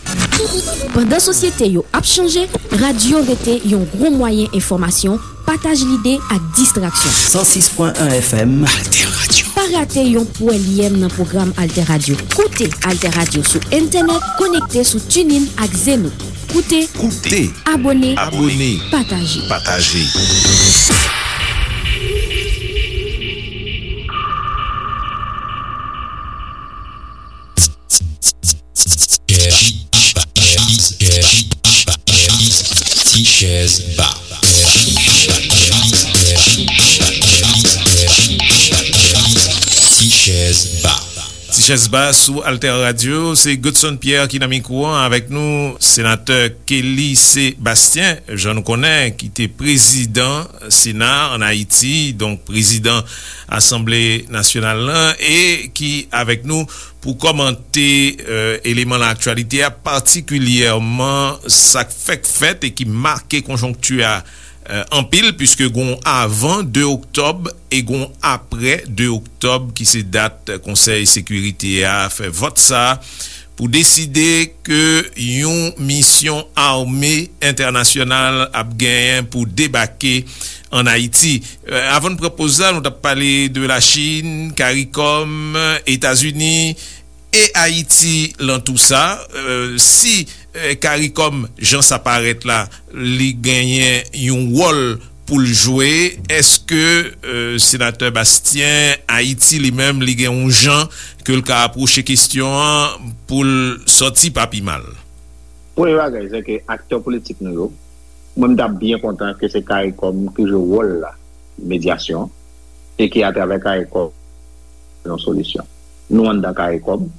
Pandan sosyete yo ap chanje, radyo rete yon gwo mwayen enfòmasyon, pataj lide ak distraksyon. San sis pwen en F M. Alter Radio. Pa rate yon pwèlyèm nan pwogram Alter Radio. Koute Alter Radio sou entènèt, konekte sou TuneIn ak Zeno. Koute, Koute. Abòne, Abòne. Pataje. Pataje. Ti chèz ba. Ti chèz ba. Ti chèz ba sou Alter Radio, se Godson Pierre ki nan mikwo an avèk nou, senatè Kelly Sébastien, jan nou konnen, ki te prezidan Sena ann Ayiti, donk prezidan Asanble Nasyonal lan, e ki avèk nou pou kòmante, euh, eleman laktyalite a, patikilyèman sa k fèk fèt e ki make konjonkti a, euh, anpil, piske gon avan de oktòb e gon apre de oktòb, ki se dat Konsèy Sekirite a fè vòt sa a pou deside ke yon misyon ame entènasyonal ap genyen pou debake ann Ayiti. Euh, avan n pran poz la, nou t ap pale de Lachin, Karikòm, Etazini e Ayiti lan tou sa. Euh, si, euh, Karikòm, jan sa parèt la, li genyen yon wòl pou l jwe, èske, euh, senatè Bastien, Ayiti li menm, li gen yon jan ke l ka apwoche kesyon an pou l sòti pa pi mal? Premye bagay, se ke aktè politik nou yo, mwen, m t ap byen kontan ke se Karikòm ki jwe wòl la, medyasyon, e ke atravè Karikòm, yon solisyon. Nou anndan Karikòm,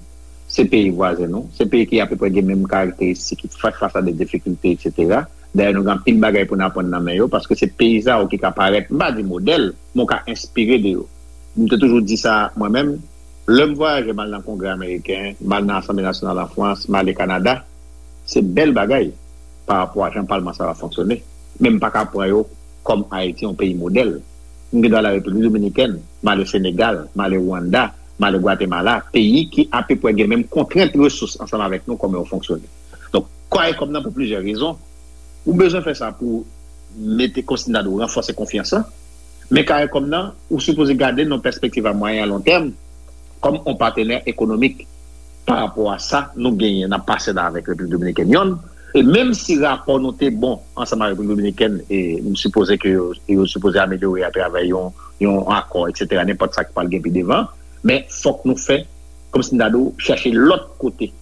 se peyi vwazen nou, se peyi ki apeprè gen menm karakteristik, ki fè fas a de difikilte, etsetera. Dayè, nou gen anpil bagay pou n aprann nan men yo, paske se peyi sa yo ki ka parèt, m pa di modèl, men w ka enspire de yo. M te toujou di sa mwen menm, lè m vwayaje, m al nan Kongrè ameriken, m al nan Asanble nasyonal an Frans, m ale Kanada, se bèl bagay pa rapò a jan palman sa va fonksyone. Men m pa ka pran yo kòm Ayiti yon peyi modèl. M gen dwa al Repiblik Dominikèn, m ale Senegal, m ale Rwanda, m ale Gwatemala, peyi ki apeprè gen menm kontrent resous ansanm avèk nou, kòman yo fonksyone. Donk, Karikòm nan, pou plizyè rezon, ou bezwen fè sa pou mete, kòmsi n ta di w, ranfòse konfyans lan. Men Karikòm nan, ou sipoze gade nan pèspektiv a mwayen a lon tèm, kòm yon patnè ekonomik pa rapò a sa nou genyen, n ap pase la avèk Repiblik Dominikèn yonn. E menm si rapò nou te bon ansanm ak Repiblik Dominikèn, e m sipoze ke yo, yo sipoze amelyore atravè yon, yon akò, etsetera, nenpòt sa ki pral gen pi devan, men fòk nou fè, kòmsi n ta di w, chèche lòt kote,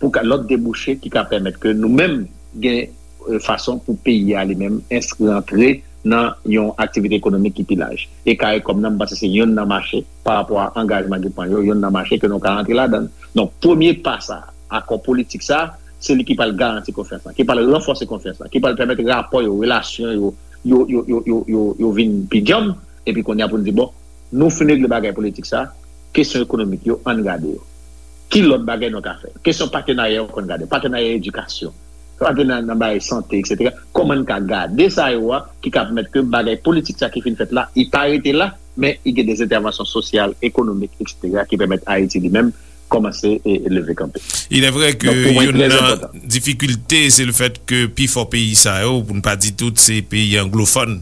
pou ka, lòt debouche ki ka pèmèt ke nou menm gen, euh, fason pou peyi a li menm enskri antre nan yon aktivite ekonomik ki pi laj. E Karikòm nan, m panse se yonn nan mache, pa rapò a angajman ki pran yo, yonn nan mache ke nou ka antre ladan l. Donk, premye pa sa, akò politik sa, se li ki pral garanti konfyans lan, ki pral ranfòse konfyans lan, ki pral pèmèt rapò yo, relasyon yo, yo, yo, yo, yo, yo, yo vin pi djanm, epi kounye a pou n di, bon, nou fin regle bagay politik sa, kesyon ekonomik yo, ann gade yo. Ki lòt bagay nou ka fè? Kesyon patenarya yo konn gade, patenarya edikasyon, patenarya nan bagay sante, etsetera. Kòman n ka gade sa yo a ki ka pèmèt ke bagay politik sa ki fin fèt la, li pa rete la, men li gen de entèvansyon sosyal, ekonomik, etsetera, ki pèmèt Ayiti li menm kòmanse e, e leve kanpe. Il est vrai que Donk, pou mwen, youn trè nan enpòtan. Difikilte, se le fèt ke pifò peyi sa yo, pou n pa di tout, se peyi anglofòn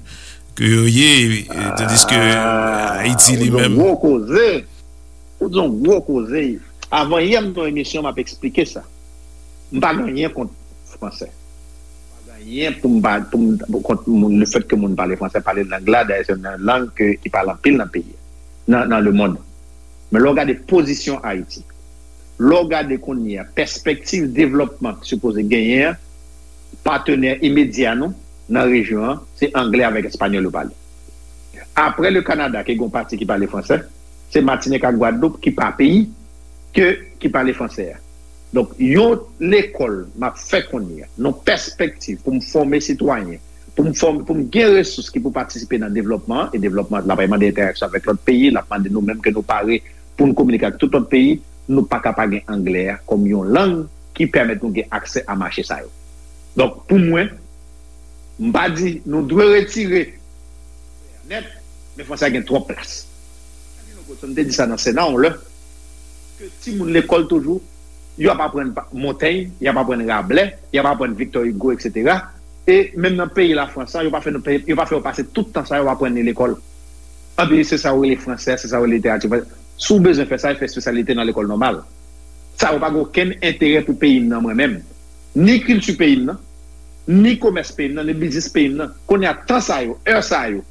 ke yo ye, e, tandis ke Ah, Ayiti li ou di yon menm. Gwo koze. Ou di yon gwo koze. Avan yè, m nan yon emisyon, m ap eksplike sa. M pa gen anyen kont fransè. M pa gen anyen pou m pa, pou m, pou kont moun, le fèt ke moun pale fransè, pale lang la, dayè se yon lang ke, ki pale anpil nan peyi a, nan, nan lemonn. Men lè w gade pozisyon Ayiti, lè w gade kounye a, pèspektiv devlòpman ki sipoze genyen an, patnè imedya nou nan rejyon an, se anglè avèk espanyòl yo pale. Apre le Kanada, ki gen yon pati ki pale fransè, se Matinik ak Gwadloup ki pa peyi, ke, ki pale fransè a. Donk, yon lekòl m ap fè kounye a, nan pèspektiv pou m fòme sitwayen, pou m fòme, pou m gen resous ki pou patisipe nan devlòpman an, e devlòpman an, l ap mande entèraksyon avèk lòt peyi, l ap mande nou menm ke nou pare pou n kominike ak tout lòt peyi, nou pa ka pa gen anglè a kòm yon lang ki pèmèt nou gen aksè a mache sa yo. Donk, pou mwen, m pa di nou dwe retire nèt, men Fransè a gen twòp plas. M te di sa nan Sena yon lè, ke timoun lekòl toujou, y ap aprann Montaigne, y ap aprann Rabelais, y ap aprann Victor Hugo, et cetera. E menm nan peyi Lafrans la, yo pa fè nou, yo pa fè yo pase tout tan sa yo aprann li lekòl. Anpi se sa yo rele fransè, se sa yo rele literati fransè. Si w bezwen fè sa, fè espesyalite nan lekòl nòmal. Sa yo pa gen okenn enterè pou peyi m nan mwen menm. Ni kilti peyi m nan, ni komès peyi m nan, ni biznis peyi m nan. Kounye a, tan sa yo, è sa yo,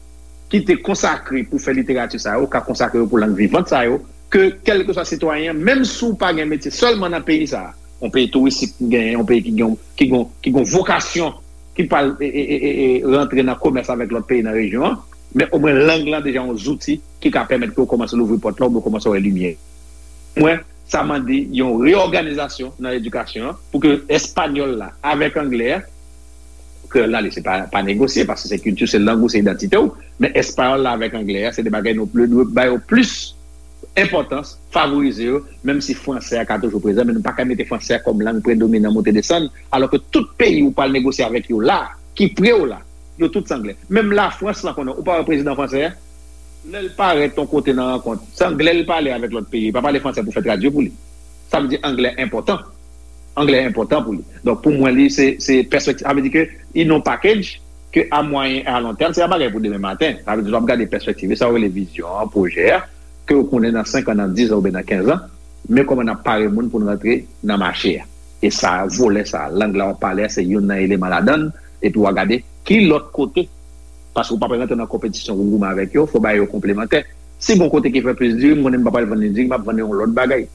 ki te konsakre pou fè literati sa yo, ka konsakre yo pou lang vivant sa yo, ke kèlkeswa sitwayen an, menm si w pa gen metye sèlman nan peyi sa a, yon peyi touristik ki genyen, yon peyi ki gen, ki gen, ki gen vokasyon, ki pral e, e, e, e, e, rantre nan komès avèk lòt peyi nan rejyon an, men omwen lang lan deja yon zouti ki ka pèmèt ke w kòmanse louvri pòt la, oubyen w kòmanse wè limyè. Mwen, sa mande yon reyòganizasyon nan edikasyon an pou ke espanyòl la avèk anglè a, kreyòl la, li se pa, pa negosye, paske se kilti, se lang ou, se idantite w, men espanyòl la avèk anglè a, se de bagay nou dwe bay yo plis enpòtans, favorize yo, menm si fransè a ka toujou prezan, men nou pa ka mete fransè a kòm lang predominan monte desann, alò ke tout peyi ou pral negosye avèk yo la, ki pre w la, yo tout se anglè. Menm Lafrans lan konnen, ou pa wè prezidan fransè a, lè l parèt yon kote nan rankont, se anglè l pale avèk lòt peyi, li pa pale fransè pou fè tradui pou li. Sa vle di anglè enpòtan. Anglè enpòtan pou li. Donk, pou mwen, li, se, se pèspektiv. Sa vle di ke, in yon package, ke a mwayen e a lon tèm, se pa bagay pou demen maten. Sa vle di, w ap gade pèspektiv, e sa w rele vizyon an, pwojè a, ke w konnen nan senk an, nan diz an, oubyen nan kenz an, men kòman n ap pare moun pou n rantre nan mache a. E sa, volè sa, lang la w ap pale a, se youn nan eleman ladan l, epi w a gade ki lòt kote. Paske w pa pral rantre nan konpetisyon pou goumen avèk yo, fò w ba yo konplemantè. Si gon kote ki fè plis diri, m konnen m pa pral vann li diri, m ap vann li yon lòt bagay.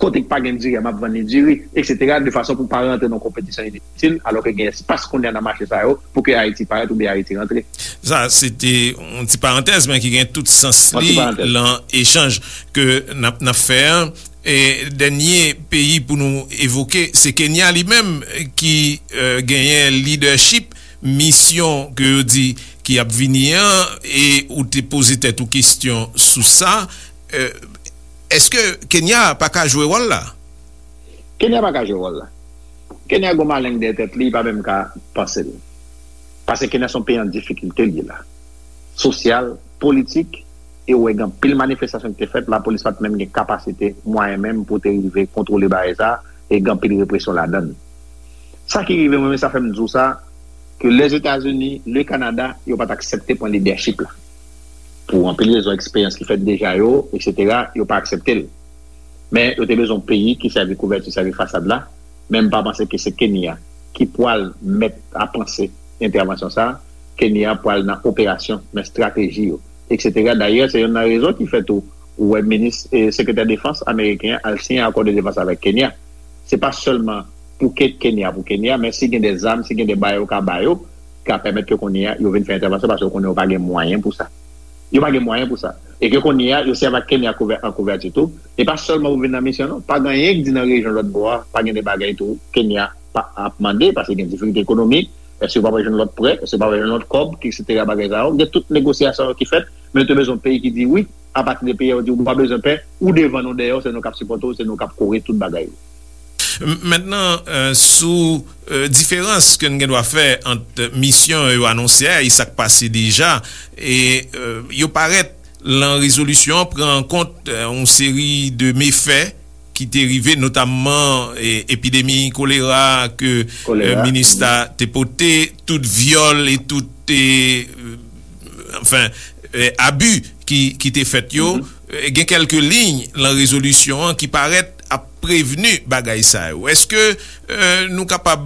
Kote ki pa gen diri a, m ap vann li diri, et cetera, de fason pou pa rantre nan konpetisyon initil, alò ke gen espas kounye a nan mache sa yo, pou ke Ayiti parèt oubyen Ayiti rantre. Sa, se te yon ti parantèz, men ki gen tout sans li lan echanj ke n ap, n ap fè an. E dènye peyi pou nou evoke, se Kenya li menm ki, eh, genyen lidèchip misyon ke yo di ki ap vini an, e ou te poze tèt ou kesyon sou sa. Eh, èske Kenya pa ka jwe wòl la? Kenya pa ka jwe wòl la. Kenya gon maleng dèyè tèt li, li pa menm ka panse l. Paske Kenya se yon peyi an difikilte li ye la. Sosyal, politik, e ou wè gen anpil manifestasyon ki te fèt, lapolis pa t menm gen kapasite, mwayen menm pou te rive kontwole bagay sa, e gen anpil represyon ladan l. Sa ki rive mwen, men sa fè m di w sa, ke Lèzetazini, le Kanada, yo pa t aksepte pran lidèchip la. Pou anpil rezon, eksperyans ki fèt deja yo, et cetera, yo pa aksepte l. Men yo te bezwen yon peyi ki sèvi kouvèti, sèvi fasad la. Men m pa panse ke se Kenya ki pral mèt a panse entèvansyon sa. Kenya pral nan operasyon, nan estrateji yo, et cetera. Dayè, se youn nan rezon ki fè tou ou wè minis, eh, sekretè defans ameriken an al siyen akò de defans avèk Kenya. Se pa sèlman pou ke Kenya, pou Kenya, men si gen de zam, si gen de bagay yo ka ba yo, ka pèmèt ke kounye a yo vin fè entèvansyon, paske yo konnen yo pa gen mwayen pou sa. Yo pa gen mwayen pou sa. E ke kounye a, yo sèvi ak Kenya kouvè-, an kouvèti tou. E pa sèlman pou vin nan misyon, non. Pa gen anyen ki di nan rejyon lòt bò a, pa gen de bagay tou Kenya pa ap mande, paske gen difikilte ekonomik. Èske yo pa pral jwenn lòt prè? Èske yo pa pral jwenn lòt kòb, et cetera, bagay sa yo? Gen tout negosyasyon yo ki fèt, men yo te bezwen yon peyi ki di wi, apati de peyi a yo di ou pa bezwen pè, ou devan nou dèyè w, se nou k ap sipòte w, se nou k ap kore tout bagay yo. M-, mentnan, eh, sou, eh, diferans ke n gen dwa fè ant misyon yo anonse a e sa k pase deja, e, eh, yo parèt lan rezolisyon an pran an kont, eh, yon seri de mefè ki te rive, notamman, eh, epidemi kolera ke, eh, minis la te pote, tout vyòl e tout, eh, anfen, eh, abi ki, ki te fèt yo. Eh, gen kèlke liy lan rezolisyon an ki parèt ap prevni bagay sa yo. Èske, eh, nou kapab,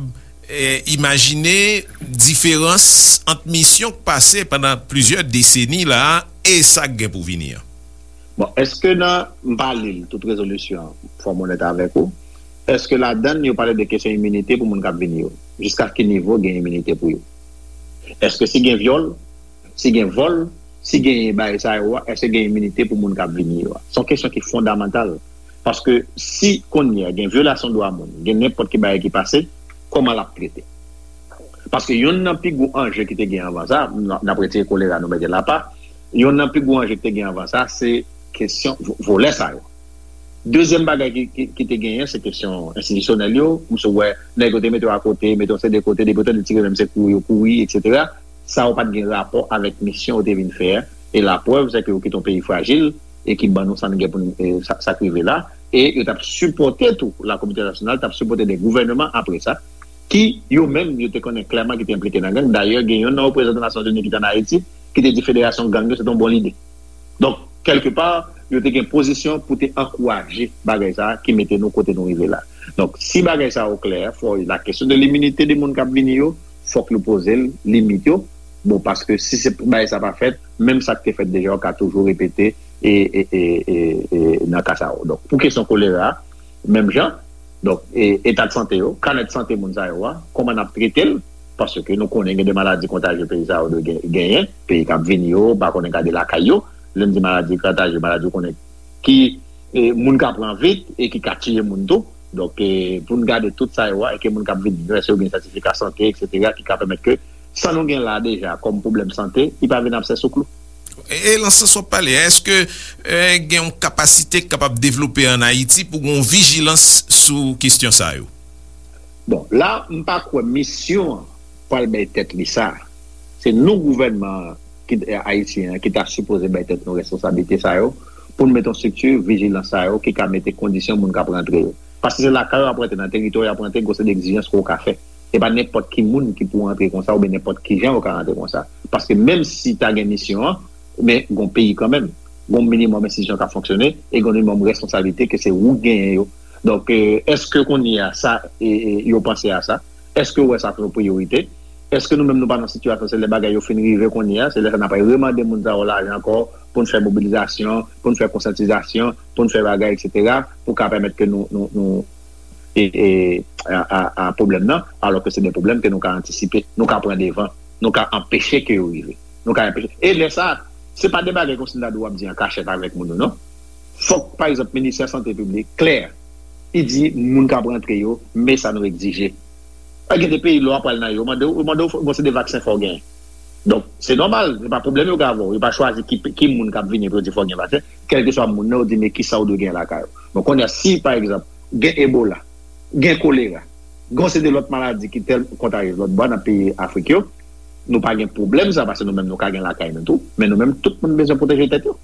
eh, imajine diferans ant misyon k pase pandan plizyè deseni la a e sa k gen pou vini an? Bon, èske nan, m pa li l, tout rezolisyon an, fò m onèt avèk ou, èske ladan l yo pale de kesyon iminite pou moun k ap vini yo? Jiska ki nivo gen iminite pou yo? Èske si gen vyòl, si gen vòl, si genyen bagay sa yo a, èske gen iminite pou moun k ap vini yo a? Se yon kesyon ki fondamantal. Paske si kounye a gen vyolasyon dwa moun, gen nenpòt ki bagay ki pase, kòman l ap trete? Paske youn nan pi gwo anje ki te gen anvan sa, n, n ap retire kolera, nou mete l apa, youn nan pi gwo anje ki te gen anvan sa, se kesyon vo-, volè sa yo. Dezyèm bagay ki, ki, ki te genyen, se kesyon enstitisyonèl yo. M sou wè nèg yo te mete yo akote, mete yo se de kote, depi yo tande tire menm se kouri yo kouri, etsetera. Sa yo pa t gen rapò avèk misyon yo te vin fè a. E laprèv, se ke yo kite yon peyi frajil e ki ban nou sa n gen pou n, e, sa, sa k rive la. E yo t ap sipòte tou, la kominote entènasyonal t ap sipòte de gouvènman apre sa, ki yo menm, yo te konnen klèman ki te enplike nan gang. Dayè, gen youn nan reprezantan Nasyonzini ki te ann Ayiti, ki te di federasyon gang yo, se te yon bon lide. Donk, kèlkepa, yo te gen pozisyon pou te ankouraje bagay sa a ki mete nou kote nou rive la. Donk, si bagay sa a o klè, fò la kesyon de liminite de moun k ap vini yo, fòk nou poze l, limit yo. Bon, paske si se bagay sa pa fèt, menm sa k te fèt deja, yo ka toujou repete e, e, e, e, e nan ka sa yo. Donk, pou kesyon kolera, menm jan, donk, e, eta de sante yo, kanè de sante moun sa yo a, kòman n ap trete l, paske nou konnen gen de maladi kontajye peyi sa yo dwe gen- genyen, peyi k ap vini yo, pa konnen gade lakay yo, lè m di maladi kontajye, maladi ou konnen ki e, moun ka pran vit e ki ka tiye moun tou. Donk, e, pou n gade tout sa yo a, e ke moun k ap vini yo, èske yo gen sètifika sante, etsetera, ki ka pèmèt ke sa nou gen la deja kòm pwoblèm sante, li pa vin absè sou klou. E, e nan sans w ap pale a, èske e, gen yon kapasite k kapab devlope ann Ayiti pou gen yon vijilans sou kesyon sa yo? Bon, la, m pa kwè misyon an pral bay tèt li sa. Se nou, gouvènman ki, ayisyen an, ki ta sipoze bay tèt nou responsablite sa yo, pou n mete yon estrikti vijilans sa yo, ki ka mete kondisyon moun k ap rantre yo. Paske se lakay yo ap rantre, nan teritwa yo ap rantre, gen yon seri de egzijans ke w ka fè. E pa nenpòt ki moun ki pou rantre konsa, oubyen nenpòt ki jan yo ka rantre konsa. Paske menm si ta gen misyon an, men gen yon peyi kanmenm. Gen yon minimòm enstitisyon k ap fonksyone, e gen yon minimòm responsablite ke se ou k genyen yo. Donk, e, èske kounye a sa, e, e, yo panse a sa? Èske yo wè sa kòm yon priyorite? Èske nou menm nou pa nan sitiyasyon, se lè bagay yo fin rive kounye a, se lè sa n ap remande moun sa yo lajan ankò, pou n fè mobilizasyon, pou n fè konsyantizasyon, pou n fè bagay, etsetera, pou ka pèmèt ke nou, nou, nou, e, e, a, a, a pwoblèm nan, alò ke se de pwoblèm ke nou ka antisipe, nou ka pran devan, nou ka anpeche ke yo rive. Nou ka anpeche. E lè sa, se pa de bagay kòmsi n ta di w ap di an kachèt avèk moun yo, non. Fòk, pa egzanp, Ministè Sante Piblik klè, li di moun k ap rantre yo, men sa nou egzije. Pa gen de peyi, lè w ap pral nan yo, yo mande w, yo mande w, bon, se de vaksen fò w genyen. Donk, se nòmal, se pa pwoblèm yo gen avè w. Yo pa chwazi ki, ki moun k ap vini pou yo di fò w gen vaksen. Kèlkeswa moun nan, yo di, men kisa w dwe gen lakay ou. Donk, kounye a, si, pa egzanp, gen Ebola, gen kolera, gen yon seri de lòt maladi ki tèl kontajyez lòt bò nan peyi Afrik yo, nou pa gen pwoblèm sa, paske nou menm nou ka gen lakay nou tou. Men nou menm, tout moun bezwen pwoteje tèt yo.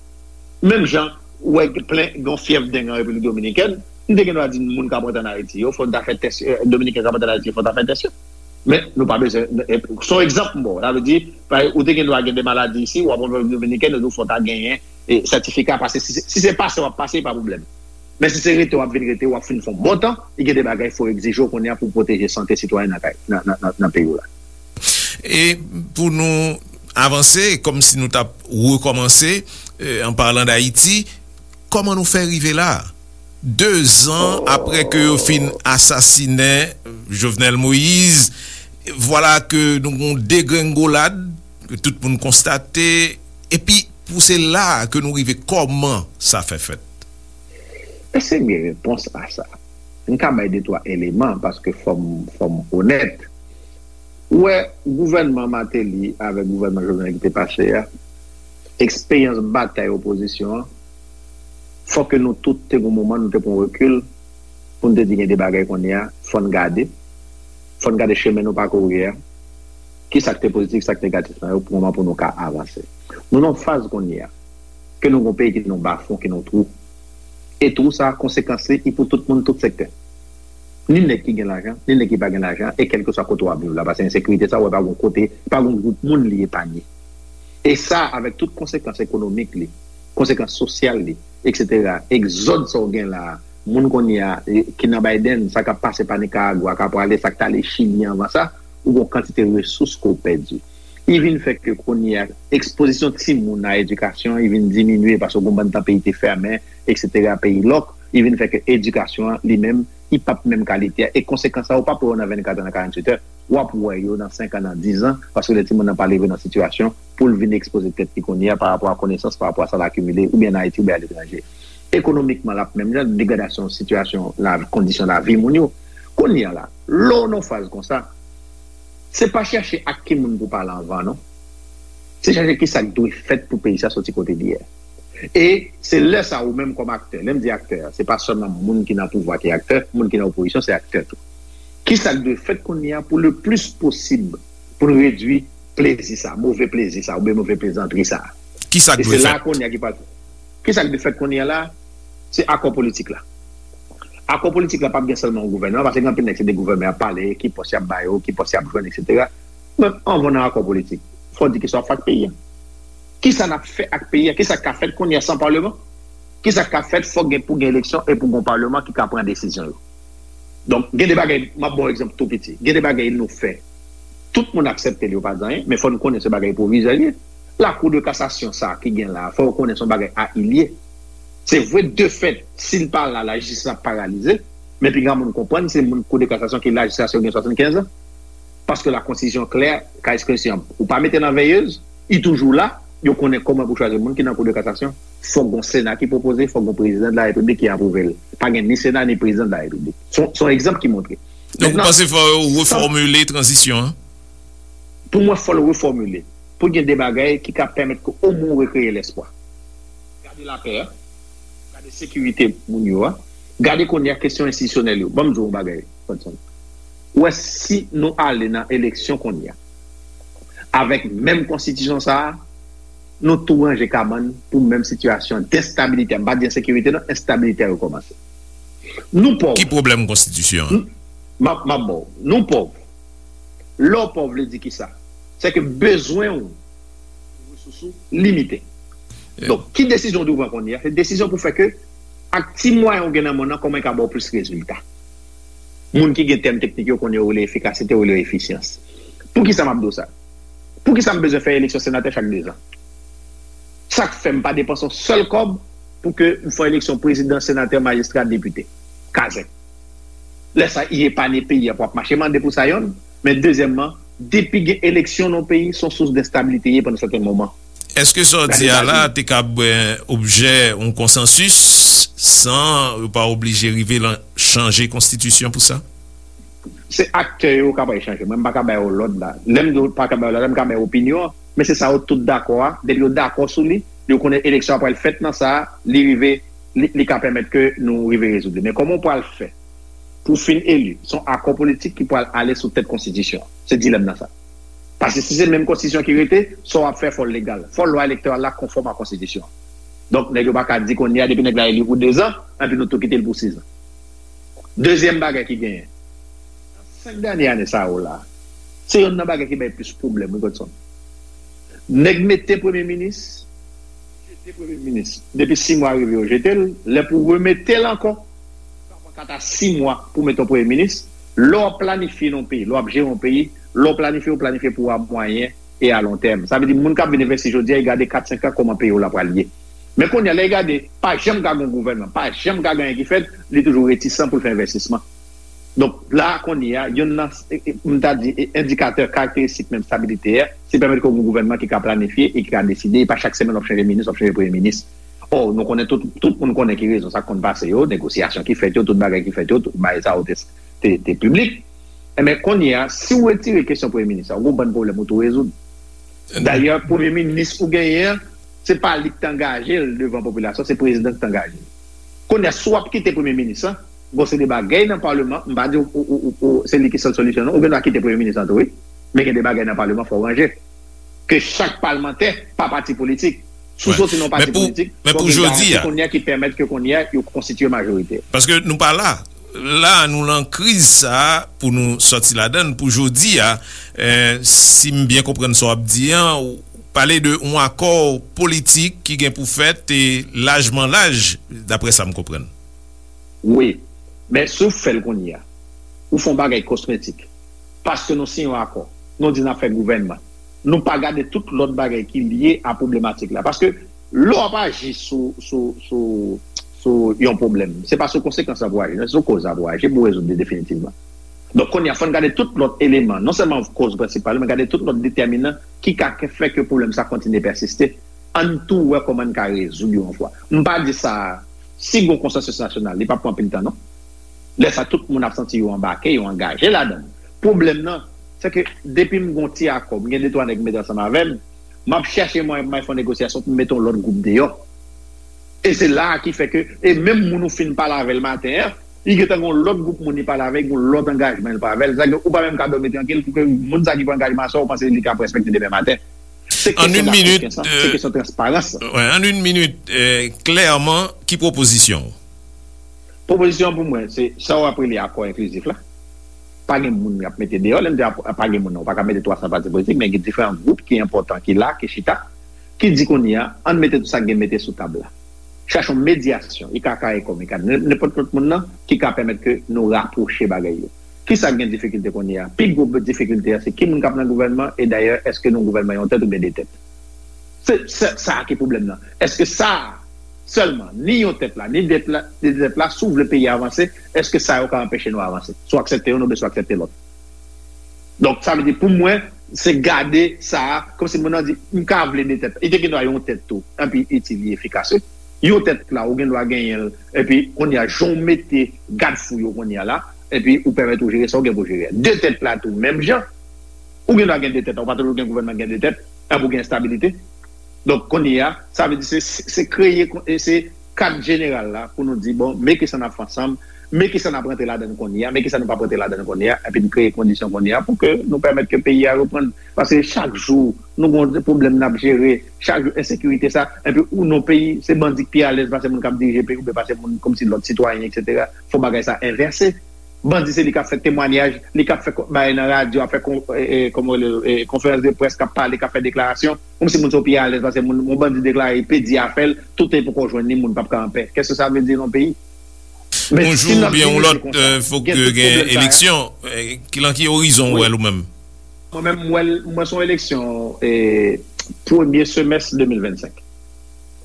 Menm jan, ou wè plen gen yon fyèv deng an Repiblik Dominikèn, m te gen dwa di moun k ap rantre ann Ayiti yo, fò n ta fè tès, e, Dominiken k ap rantre ann Ayiti yo, fò n ta fè tès yo. Men nou pa bezwen, e, se yon egzanp m ba w. Sa vle di, pa- ou te gen dwa gen de maladi isi, w ap rantre Repiblik Dominikèn, yo di w fò w ta genyen, e, sètifika, paske si, se- si se pase w ap pase, pa pwoblèm. Men si se rete w ap vin rete, w ap fin fè yon bon tan, e gen de bagay fò w egzije w kounye a pou w pwoteje sante sitwayen nan kay, nan, nan, nan, nan peyi w la. E pou nou avanse, kòmsi nou t ap rekòmanse, e, an palan d Ayiti, kòman nou fè rive la? De zan apre ke yo fin asasinen Jovenel Moïse, vwala ke nou gon degrengolad, ke tout moun konstate, epi pou se la ke nou rive, kòman sa fè fèt? Èske m gen repons a sa? M ka bay de twa eleman, paske fò m, fò m onèt. Ou wè, gouvènman Martelly avèk gouvènman Jovenel ki te pase a, eksperyans batay opozisyon an, fò ke nou tout te gon moman nou te pran rekil pou n te di gen de bagay kounye a, fò n gade, fò n gade chemen nou pakouri a, ki sa k te pozitif, sa k negatif nan yo, pou moman pou nou ka avanse. Nou nan yon faz kounye a, ke nou gon peyi ki nan bafon, ki nan twou. E twou sa, konsekans li, li pou tout moun, tout sektè. Ni nèg ki gen lajan, ni nèg ki pa gen lajan, e kèlkeswa kote w ap viv la, paske ensekirite sa, w wè pa gon kote, pa gon gwoup moun li epanye. E sa, avèk tout konsekans ekonomik li, konsekans sosyal li, etsetera, egzòd sa w gen la, moun kounye a, e, ki nan Biden, sa k ap pase pa Nikaragwa, k ap prale, sa k t ale Chili anvan sa, ou gon kantite resous ke w pèdi. Li vin fè ke kounye a, ekspozisyon timoun a edikasyon, li vin diminye paske gon bann tan peyi te fèmen, etsetera, peyi lòk, li vin fè ke edikasyon an, li menm, li p ap menm kalite a. E konsekans sa, ou p ap wè yo nan vennkat an, nan karanntuit è. W ap wè yo nan senk an, nan diz an, paske lè timoun nan pa leve nan sitiyasyon pou l vin ekspoze tèt li kounye a pa rapò a konesans, pa rapò a sa l akimile, oubyen ann Ayiti, oubyen aletranje. Ekonomikman, l ap menm jan, degradasyon sitiyasyon lavi, kondisyon lavi moun yo. Kounye a la, lè w nan faz konsa, se pa chèche ak ki moun pou pale anvan, non. Se chèche ki sa k dwe fèt pou peyi sa soti kote li ye a. E se lè sa ou menm kòm aktè, lè m di aktè, se pa sèlman moun ki nan pouvwa ki aktè, moun ki nan opozisyon se aktè tou. Kisa k dwe fèt kounye a pou le plis posib pou n redui plezi sa, move plezi sa, oubyen move plezantri sa? Kisa k dwe fèt? Kisa k dwe fèt kounye a la? Se akò politik la. Akò politik la p ap gen sèlman yon gouvènman, paske gen anpil nèg se de gouvènman y ap pale, ki pòs y ap ba yo, ki pòs y ap jwenn, etsetera. Men anvan nan akò politik, fò w di kisa w ap fè ak peyi a. Kisa n ap fè ak peyi a? Kisa k ka fèt kounye a san palman? Kisa k ka fèt? Fòk gen pou gen eleksyon e pou gen yon palman ki ka pran desizyon yo. Donk, gen de bagay, m ap ba w egzanp tou piti. Gen de bagay nou fè. Tout moun aksepte l, yo pa di anyen, men fò n konnen se bagay pwovizè l ye. Lakou de kasasyon sa a ki gen la a, fò yo konnen se yon bagay a il ye. Se vre, de fèt, si l pa la, lajistis ap paralize, men pi gran moun konprann se moun kou de kasasyon ki lajistis yo gen swasannkenz an. Paske la konstitisyon klè, ka ekspresyon, ou pa mete nan veyez, li toujou la, yo konnen kòman pou chwazi moun ki nan kou de kasasyon. Fòk gon sena ki pwopoze, fòk gon prezidan de la repiblik ki apwouve l. Pa gen ni sena ni prezidan de la repiblik. Se yon, se yon egzanp ki montre. Donk, ou panse fò yo refòmile tranzisyon an? Pou mwen, fò l refòmile. Pou gen de bagay ki ka pèmèt ke omwen w rekreye lespwa. Gade lapè a, gade sekirite moun yo a, gade kounye a kesyon enstitisyonèl yo. Ban m di w yon bagay, Godson. Ou wè, si nou ale nan eleksyon kounye a, avèk menm konstitisyon sa a, nou tou ranje kabann pou menm sitiyasyon d enstabilite. M pa di ensekirite non, enstabilite a rekòmanse. Nou pòv. Ki pwoblèm konstitisyon an? M ap, m ap ba w. Nou pòv. Lè w pòv vle di kisa? Se ke bezwen w, resous ou limite. Donk, ki desizyon w dwe pran kounye a? Se desizyon pou fè ke ak ti mwayen w gen nan men w nan, kòman e ka ba w plis rezilta. Moun ki gen tèm teknik yo konnen yo rele efikasite, yo rele efisyans. Poukisa m ap di w sa? Poukisa m bezwen fè eleksyon senatè chak dezan? Sa k fè m pa depanse yon sèl kòb pou ke m fè eleksyon prezidan, senatè, majistra, depite? Kazèk. Lè sa, i epanye peyi a pou ap mache mande pou sa yonn. Men dezyèmman, depi gen eleksyon nan yon peyi, se yon sous d enstabilite ye pandan sèten moman. Èske sa w di a la te kab, eh, objè yon konsansis san yo pa oblije rive lan chanje konstitisyon pou sa? Se aktè yo k ap al chanje. Mwen, m pa ka ba yo lòd la. Lè m di w pa ka ba yo lòd la, m ka ba yo opinyon an. Men se sa yo tout dakò a. Depi yo dakò sou li, yo konnen eleksyon an pral fèt nan sa, li rive, li, li ka pèmèt ke nou rive rezoud li. Men kòman w pral fè pou w fin eli? Se yon akò politik ki pral ale sou tèt konstitisyon an. Se dilèm nan sa. Paske si se menm konstitisyon ki rete, sa w ap fè fò l legal. Fò lwa elektoral la konfòm a konstitisyon an. Donk, nèg yo pa ka di kounye a, depi nèg la eli pou dezan, anpi nou tou kite l pou sizan. Dezyèm bagay ki genyen, nan senk dènye ane sa yo la, se yonn nan bagay ki bay plis pwoblèm, wi, Godson. Nèg mete premye minis, jete premye minis. Depi sis mwa rive, yo jete l. Lè pou remete l ankò, sa pran kat a sis mwa pou mete yon premye minis. Lè w ap planifye nan yon peyi, lè w ap jere yon peyi, lè w planifye, w planifye pou a mwayen e a lon tèm. Sa vle di, moun k ap vin envesti jodi a, y gade kat, senk an, kòman peyi w la pral ye. Men kounye a, lè y gade, pa janm ka gen yon gouvènman, pa janm ka gen anyen ki fèt, li toujou retisan pou l fè envestisman. Donk, la a kounye a, yonn nan, e, e, m ta di, e, endikatè karakteristik menm stabilite a, se pèmèt ke w gen yon gouvènman ki ka planifye e ki ka deside, e pa chak semèn w ap chanje minis, w ap chanje premye minis. Ò, nou konnen tout, tout moun konnen ki rezon sa konn pase yo, negosyasyon ki fèt yo, tout bagay ki fèt yo, tout bagay sa yo te, te, te piblik. Enben, kounye a, si w retire kesyon premye minis la, w gen yon bann pwoblèm ou tou rezoud. Dayè, premye minis ou genyen an, se pa li ki t angaje l devan popilasyon, se prezidan ki t angaje l. Kounye a, si w ap kite premye minis lan, gon seri de bagay nan palman, m pa di w, w, w, w, w, se li ki sèl solisyon non, ou gen dwa kite premye minis lan tou, wi. Men gen de bagay nan palman fò w ranje. Ke chak palmantè pa pati politik. Si w soti nan yon pati politik, fò w gen garanti kounye a ki pèmèt ke kounye a yo konstitiye majorite. Paske nou pa la. La, nou lan kriz sa a pou nou sòti ladan l pou jodi a. Eh, si m byen konprann sa w ap di an, ou pale de yon akò politik ki gen pou fèt e lajman laj, daprè sa m konprann. Wi. Men si w fè l kounye a, ou fè yon bagay kosmetik. Paske nou siyen yon akò. Nou di n ap fè gouvènman. Nou pa gade tout lòt bagay ki lye a pwoblematik la. Paske lè w ap aji sou, sou, sou, sou yon pwoblèm, se pa sou konsekans la pou w aji, non, se sou koz la pou w aji pou w rezoud li definitivman. Donk, kounye a, fò n gade tout lòt eleman, non sèlman koz prensipal, men gade tout lòt detèminan ki ka fè ke pwoblèm sa kontinye pèsiste. Ann tou wè kòman n ka rezoud yo yon fwa. M pa di sa, si gon konsansis nasyonal, li p ap pran anpil tan, non. Lè sa, tout moun ap santi yo anbake, yo angaje ladan l. Pwoblèm nan, se ke depi m gon ti akò, m gen de twa nèg m mete ansanm avè m, m ap chèche mwayen pou m al fè yon negosyasyon pou m mete yon lòt gwoup deyò. E se la a ki fè ke, e menm moun ou fin pale avè l maten an, li gentan gen yon lòt gwoup moun li pale avè, gen yon lòt angajman li pale avè l. Sa ke ou pa menm ka dòmi trankil pou ke moun sa ki pran angajman sa, ou panse li ka respekte demen maten. Se An kesyon yon minit, dakòkens lan, se kesyon transparans lan. Wè, an yon minit, klèman, ki pwopozisyon w? Pwopozisyon pou mwen, se sa w ap rele akò enklizif la. Pa gen moun y ap mete deyò. Lè m di ap- pa gen moun, non, ou pa ka mete twa san pati politik, men gen diferan gwoup ki enpòtan, ki la, ki chita, ki di kounye a, ann mete tout sa k gen mete sou tab la. Chache yon medyasyon, I K K kòm I K K, nenpòt lòt moun nan, ki ka pèmèt ke nou rapwoche bagay yo. Kisa k gen difikilte kounye a? Pi gwo difikilte a, se ki moun k ap nan gouvènman, e dayè, èske nou gouvènman yon tèt oubyen de tèt? Se, se sa a ki pwoblèm nan. Èske sa a sèlman, ni yon tèt la, ni de tèt la, de tèt la, si w vle peyi a avanse, èske sa yo ka anpeche nou avanse? Si w aksepte youn oubyen si w aksepte lòt. Donk, sa vle di, pou mwen, se gade sa a, kòmsi moun nan di, m ka vle de tèt. Li te gen dwa yon tèt tou, epi itil li efikas, wi. Yon tèt la, ou gen dwa genyen l, epi kounye a, jan w mete gad fou yo kounye a la, epi ou pèmèt ou jere sa w gen pou jere a. De tèt la tou, menm jan, ou gen dwa gen de tèt la, ou pa toujou gen gouvènman gen de tèt, epi ou gen estabilite. Donk, kounye a, sa vle di se, se kreye, se kad jeneral la pou nou di, bon, men kisa n ap fè ansanm, men kisa n ap rantre ladan l kounye a, men kisa nou p ap rantre ladan l kounye a, epi n kreye kondisyon kounye a pou ke nou pèmèt ke peyi a reprann. Paske chak jou, nou gen pwoblèm n ap jere, chak jou, ensekirite sa, epi ou nan peyi, se bandi k pi alèz pase moun k ap dirije peyi, oubyen pase moun kòmsi lòt sitwayen, etsetera. Fò bagay sa envèse. Bandi se li k ap fè temwanyaj, li k ap fè bagay nan radyo, ap fè kon, e, e, kòman rele, e, konferans de près, k ap pale, k ap fè deklarasyon, kòmsi moun sa yo pi alèz pase moun, yon bandi deklare, pedi afè l, tout e poko jwenn li, moun p ap ka anpè. Kèske sa vle di nan peyi? Men yon si jou n ap oubyen yon lòt, fòk gen tout gen pwoblèm sa yo. Eleksyon. Ki, lan ki orizon w wè l ou menm? Mwen menm, m wè l, mwen se yon eleksyon, e, premye semès de mil vennsenk.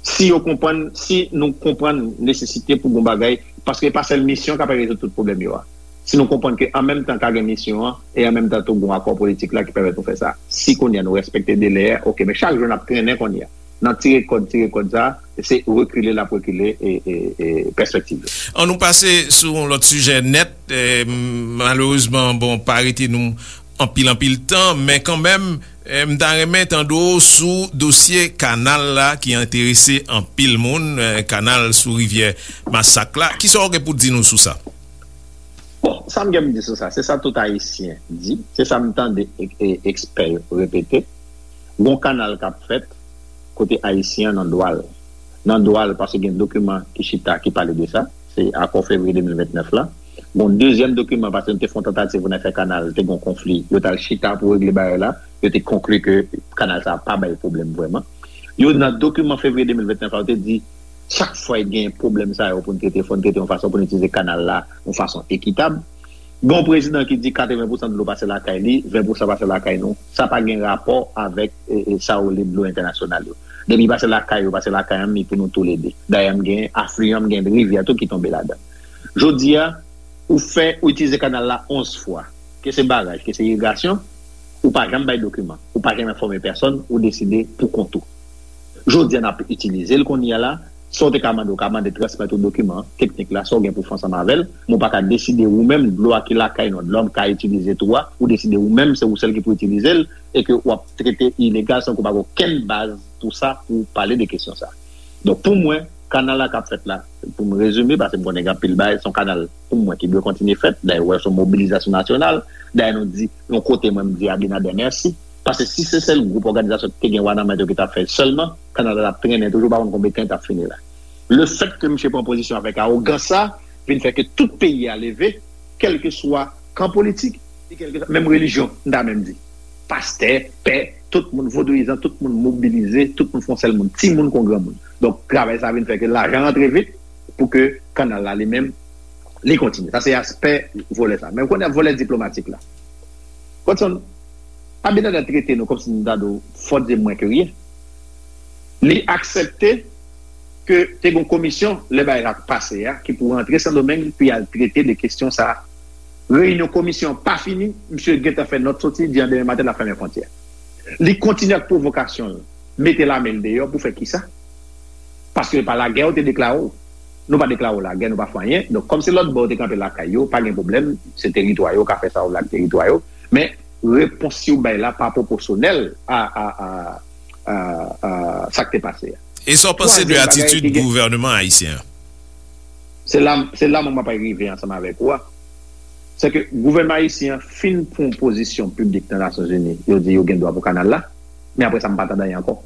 Si yo konprann, si nou konprann nesesite pou gon bagay, paske e pa sèl misyon k ap rezoud tout pwoblèm yo a. Si nou konprann ke an menm tan ka gen misyon an, e an menm tan tou gon akò politik la ki pèmèt nou fè sa. Si kounye a nou respekte delè a, oke, men chak jou n ap trennen kounye a. N ap tire kòd, tire kòd sa, se rekile l ap rekile, e, e, e, pèspektiv yo. An nou pase sou yon lòt sijè nèt, e, malerezman, bon, pa rete nou anpil, anpil tan, men kanmenm, e, m ta renmen tande w sou dosye kanal la ki enterese anpil moun, e, kanal sou rivyè Masak la. Kisa w gen pou di nou sou sa? Bon, sa m gen pou di sou sa, se sa tout Ayisyen di, se sa m tande e, e, ekspè yo repete. Gon kanal k ap fèt kote Ayisyen an nan dwa l. Nan dwa l, paske gen dokiman ki chita, ki pale de sa. Se akò fevriye de mil vennèf la. Gon dezyèm dokiman, paske nou te fè yon tantativ pou n al fè kanal, te gon konfli. Yo t al chita pou regle bagay la. Yo te konkli ke kanal sa a pa bay pwoblèm vrèman. Yo, nan dokiman fevriye de mil vennèf la, yo te di, chak fwa gen pwoblèm sa yo pou n trete, fò n trete yon fason pou n itilize kanal la yon fason ekitab. Gen yon prezidan ki di katreven pousan dlo pase lakay li, ven pousan pase lakay nou. Sa pa gen rapò avèk, e, e, sa yo rele dlo entènasyonal yo. Depi pase lakay yo, pase lakay m, li pou nou toulede. Dayè, m gen afliyan, m gen rivyè tou ki tonbe ladan. Jodi a, ou fè, ou itilize kanal la onz fwa. Ke se baraj, ke se irigasyon, ou pa janm bay dokiman, ou pa janm enfòme pèsonn, ou deside pou kont ou. Jodi a, n ap itilize l kounye a la. Sa w te ka mande, ou ka mande transmèt ou dokiman teknik la, sa w gen pou fè ansanm avè l. Men ou pa ka deside ou menm, dlo a ki lakay nou, dlo a m ka itilize tou a, ou deside ou menm, se ou sèl ki pou itilize l, e ke w ap trete ilegal san ke w pa gen okenn baz pou sa, pou w pale de kesyon sa. Donk, pou mwen, kanal la k ap fèt la, pou m rezime, paske m konnen gen anpil bagay, se yon kanal, pou mwen, ki dwe kontinye fèt. Dayè, ou wè, se yon mobilizasyon nasyonal. Dayè, nou di, yon kote, mwen, m di Abinader mèsi. Paske si se sèl gwoup òganizasyon ki te gen wa nan men yo ki t ap fè l sèlman, kanal la t ap trennen toujou, pa konn konbyen tan l t ap fini la. Lefètke misye pran pozisyon avèk awogans sa, vin fè ke tout peyi a leve, kèlkeswa kan politik, e kèlkeswa, menm relijyon, m ta menm di. Pastè, pè, tout moun, vodouyizan, tout moun mobilize, tout moun fè yon sèl moun, timoun kon granmoun. Donk, travay sa vin fè ke lajan rantre vit pou ke kanal la li menm, li kontinye. Sa se aspè volè sa. Men ou konnen volè diplomatik la. Watson, Abinader trete nou kòmsi nou ta di w, fò di mwen ke ryen. Li aksepte ke te gen yon komisyon, lè bagay sa pase a, ki pou rantre Sendomeng, pou y al trete de kesyon sa a. Reyinyon komisyon an pa fini, misye gentan fè nòt soti, di an demen maten l ap fèmen fwontyè. Li kontinye ak pwovokasyon l, mete lame l deyò pou fè kisa? Paske pa lagè yo te deklare w. Nou pa deklare w lagè, nou pa fè anyen. Donk, kòm se lòt bò yo te kanpe lakay yo, pa gen pwoblèm, se teritwa yo, ka fè sa yo vle ak teritwa yo. Men, repons yo bay la pa pwopòsyonèl a, a, a, a, a sa k te pase a. E sa w panse de atitid gouvènman ayisyen an? Se la, se la mwen m ap rive ansanm avèk ou a. Se ke gouvènman ayisyen an fin pran pozisyon piblik nan Nasyonzini, yo di yo gen dwa pou kanal la, men apre sa m pa tande anyen ankò.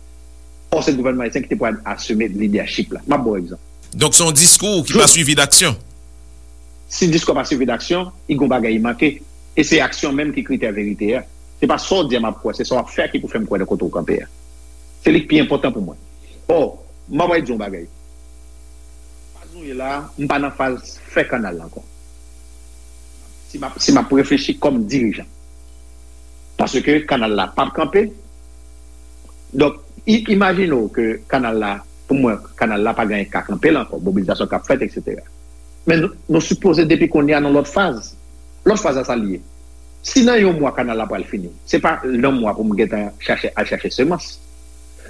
Ò, se gouvènman ayisyen ki te pral asime lidèchip la. M ap ba w egzanp. Donk, se yon diskou ki pa swivi d aksyon. Si diskou pa swivi d aksyon, i gon bagay i manke. E se aksyon menm ki kritè verite a. Se pa sa w di a m ap kwè, se sa w ap fè ki pou fè m kwè nan kote w kanpe a. Se li k pi enpòtan pou mwen. Ò, m ap di yon bagay. Faz nou ye la, m pa nan faz fè kanal la ankò. Si m ap, si m ap reflechi kòm dirijan. Paske kanal la p ap kanpe. Donk, i-, imajine w ke kanal la, pou mwen, kanal la pa gen ka kanpe l ankò, mobilizasyon k ap fèt, etsetera. Men nou, nou sipoze depi kounye a nan lòt faz. Lòt faz la sa l ye. Si nan yon mwa kanal la pral fini, se pa nan mwa pou m gentan chache, al chache semans.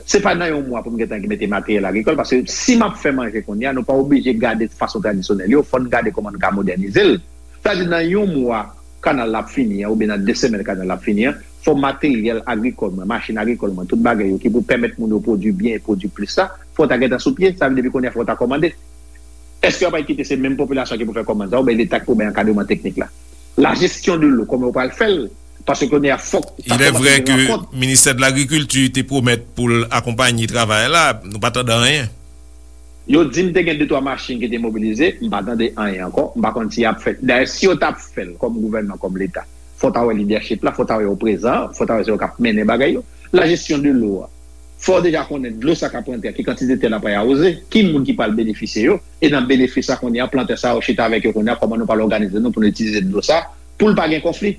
Se pa nan yon mwa pou m gentan mete materyèl agrikòl, paske si m ap fè manje kounye a, nou pa oblije gade fason tradisyonèl yo, fò n gade kòman n ka modènize l. Sa di nan yon mwa kanal la ap fini an, oubyen nan de semèn kanal la ap fini an, fò materyèl agrikòl mwen, machin agrikòl mwen, tout bagay yo ki pou pèmèt moun yo pwodui byen e pwodui plis la, fò w ta gentan sou pye, sa vle di depi kounye a fò w ta kòmande. Èske yo pral kite se menm popilasyon ki pou fè kòmand sa, oubyen Leta ki pou bay ankadreman teknik la? La gestion de l'eau, kòman yo pral fè l? Paske kounye a fòk ou ta kòmanse gen rankont. Il est vrai que ministè de lagrikilti te pwomèt pou l akonpaye travay la, nou pa tande anyen. Yo di m te gen de twa machin ki te mobilize, m pa tande anyen ankò, m pa konn si y ap fè. Dayè, si yo t ap fè l kòm gouvènman, kòm Leta, fò w ta wè lidèchip la, fò w ta wè yo prezan, fò w ta wè se yo k ap mennen bagay yo. La gestion de l'eau a, fò w deja konnen dlo sa k ap rantre a, ki kantite tè l ap awoze, ki moun ki pral benefisye yo, e nan benefis sa kounye a, plantè sa yo chita avèk yo kounye a, kòman nou pral òganize nou pou nou itilize dlo sa, pou l pa gen konfli.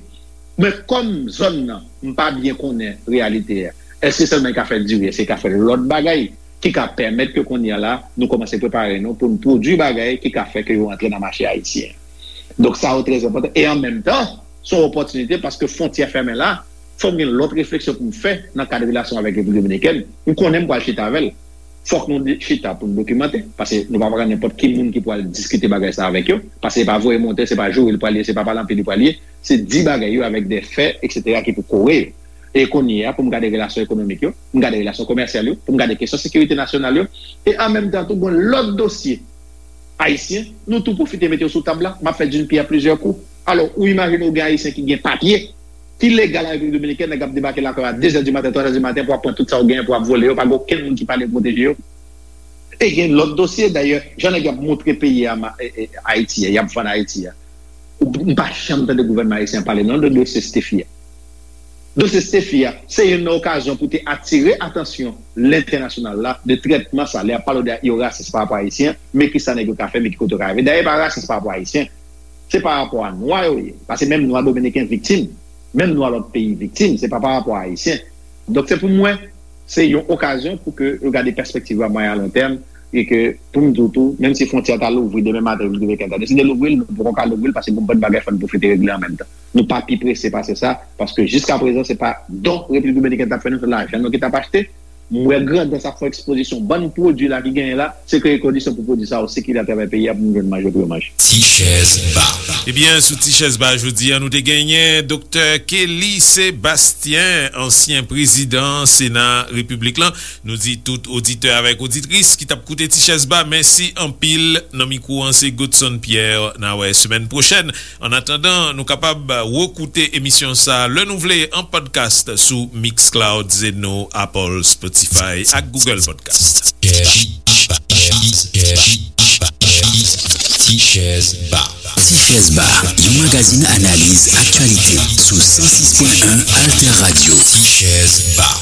Men kòm zòn nan, m pa byen konnen reyalite a. Èske sèlman li ka fè diri, èske li ka fè lòt bagay ki ka pèmèt ke kounye a la, nou kòmanse prepare nou pou n pwodui bagay ki ka fè ke yo antre nan mache ayisyen an? Donk, sa yo trè enpòtan. E an menm tan, se yon opòtinite paske fwontyè fèmen la, fò m gen lòt refleksyon pou m fè nan kad relasyon avèk Repiblik Dominikèn. M konnen m pral chita avè l. Fòk nou di-, chita pou n dokimante, paske nou pa pran nenpòt ki moun ki pral diskite bagay sa avèk yo, paske se pa voye monte, se pa joure li pral ye, se pa pale anpil li pral ye, se di bagay yo avèk de fè, etsetera, ki pou kore yo. E kounye a, pou m gade relasyon ekonomik yo, pou m gade relasyon komèsyal yo, pou m gade kesyon sekirite nasyonal yo, e an menm tan tou, gen lòt dosye ayisyen, nou tou pwofite mete yo sou tab la, m ap fè d'une pierre plusieurs coups. Alò, ou imajine w gen ayisyen ki gen papye, ki legal an Repiblik Dominikèn, nèg ap debake lakay w a de zè di maten, twa zè di maten, pou ap pran tout sa w genyen, pou ap vole yo, pa gen okenn moun ki pale pwoteje yo. E gen lòt dosye, dayè, jan nèg yo ap montre peyi a, ma-, e, e, Ayiti a, y ap vann Ayiti a. Ou, m pa janm tande gouvènman ayisyen an pale non de dosye Stephy a. Dosye Stephy a, se youn nan okazyon pou te atire atansyon lentènasyonal la de trètman sa. Lè y ap pale de yo rasis pa rapò a ayisyen, men kisa nèg yo ka fè, men ki kote yo ka rive. Dayè, pa rasis pa rapò a ayisyen. Se pa rapò a nwa yo ye. Paske menm nwa dominiken viktim, menm nwa lòt peyi viktim, se pa pa rapò a ayisyen. Donk, se pou mwen, se yon okazyon pou ke yo gade pèspektiv yo a mwayen a lon tèm, e ke, pou m di w tou, menm si fwontyè a ta louvri demen maten, Repiblik Dominikèn ta deside louvri l, nou poko ka louvri l, paske gon bann bagay fò n pwofite regle an menm tan. Nou pa pi prese pase sa, paske jiskaprezan, se pa don Repiblik Dominikèn t ap fè nou, se lajan nou ki t ap achte. M wè Grandans ap fè ekspozisyon bann pwodui la ki genyen la, se kreye kondisyon pou pwodui sa yo sikile atravè peyi a pou moun jwenn manje pou yo manje. Ti chèz ba. Ebyen, sou Ti chèz ba jodi a, nou te genyen Doktè Kelly Sébastien, ansyen prezidan Sena Repiblik lan. Nou di tout oditè avèk oditris ki t ap koute Ti chèz ba, mèsi anpil. Nan mikwo an, se Godson Pierre. N a wè semèn pwochèn. Annatandan, nou kapab rekoute emisyon sa a lè nou vle an podcast sou Mixcloud, Zeno, Apple, Spotify ak Google Podcast. Ti chèz ba. Ti chèz ba, yon magazin analiz aktyalite sou san sis pwen en Alter Radio. Ti chèz ba.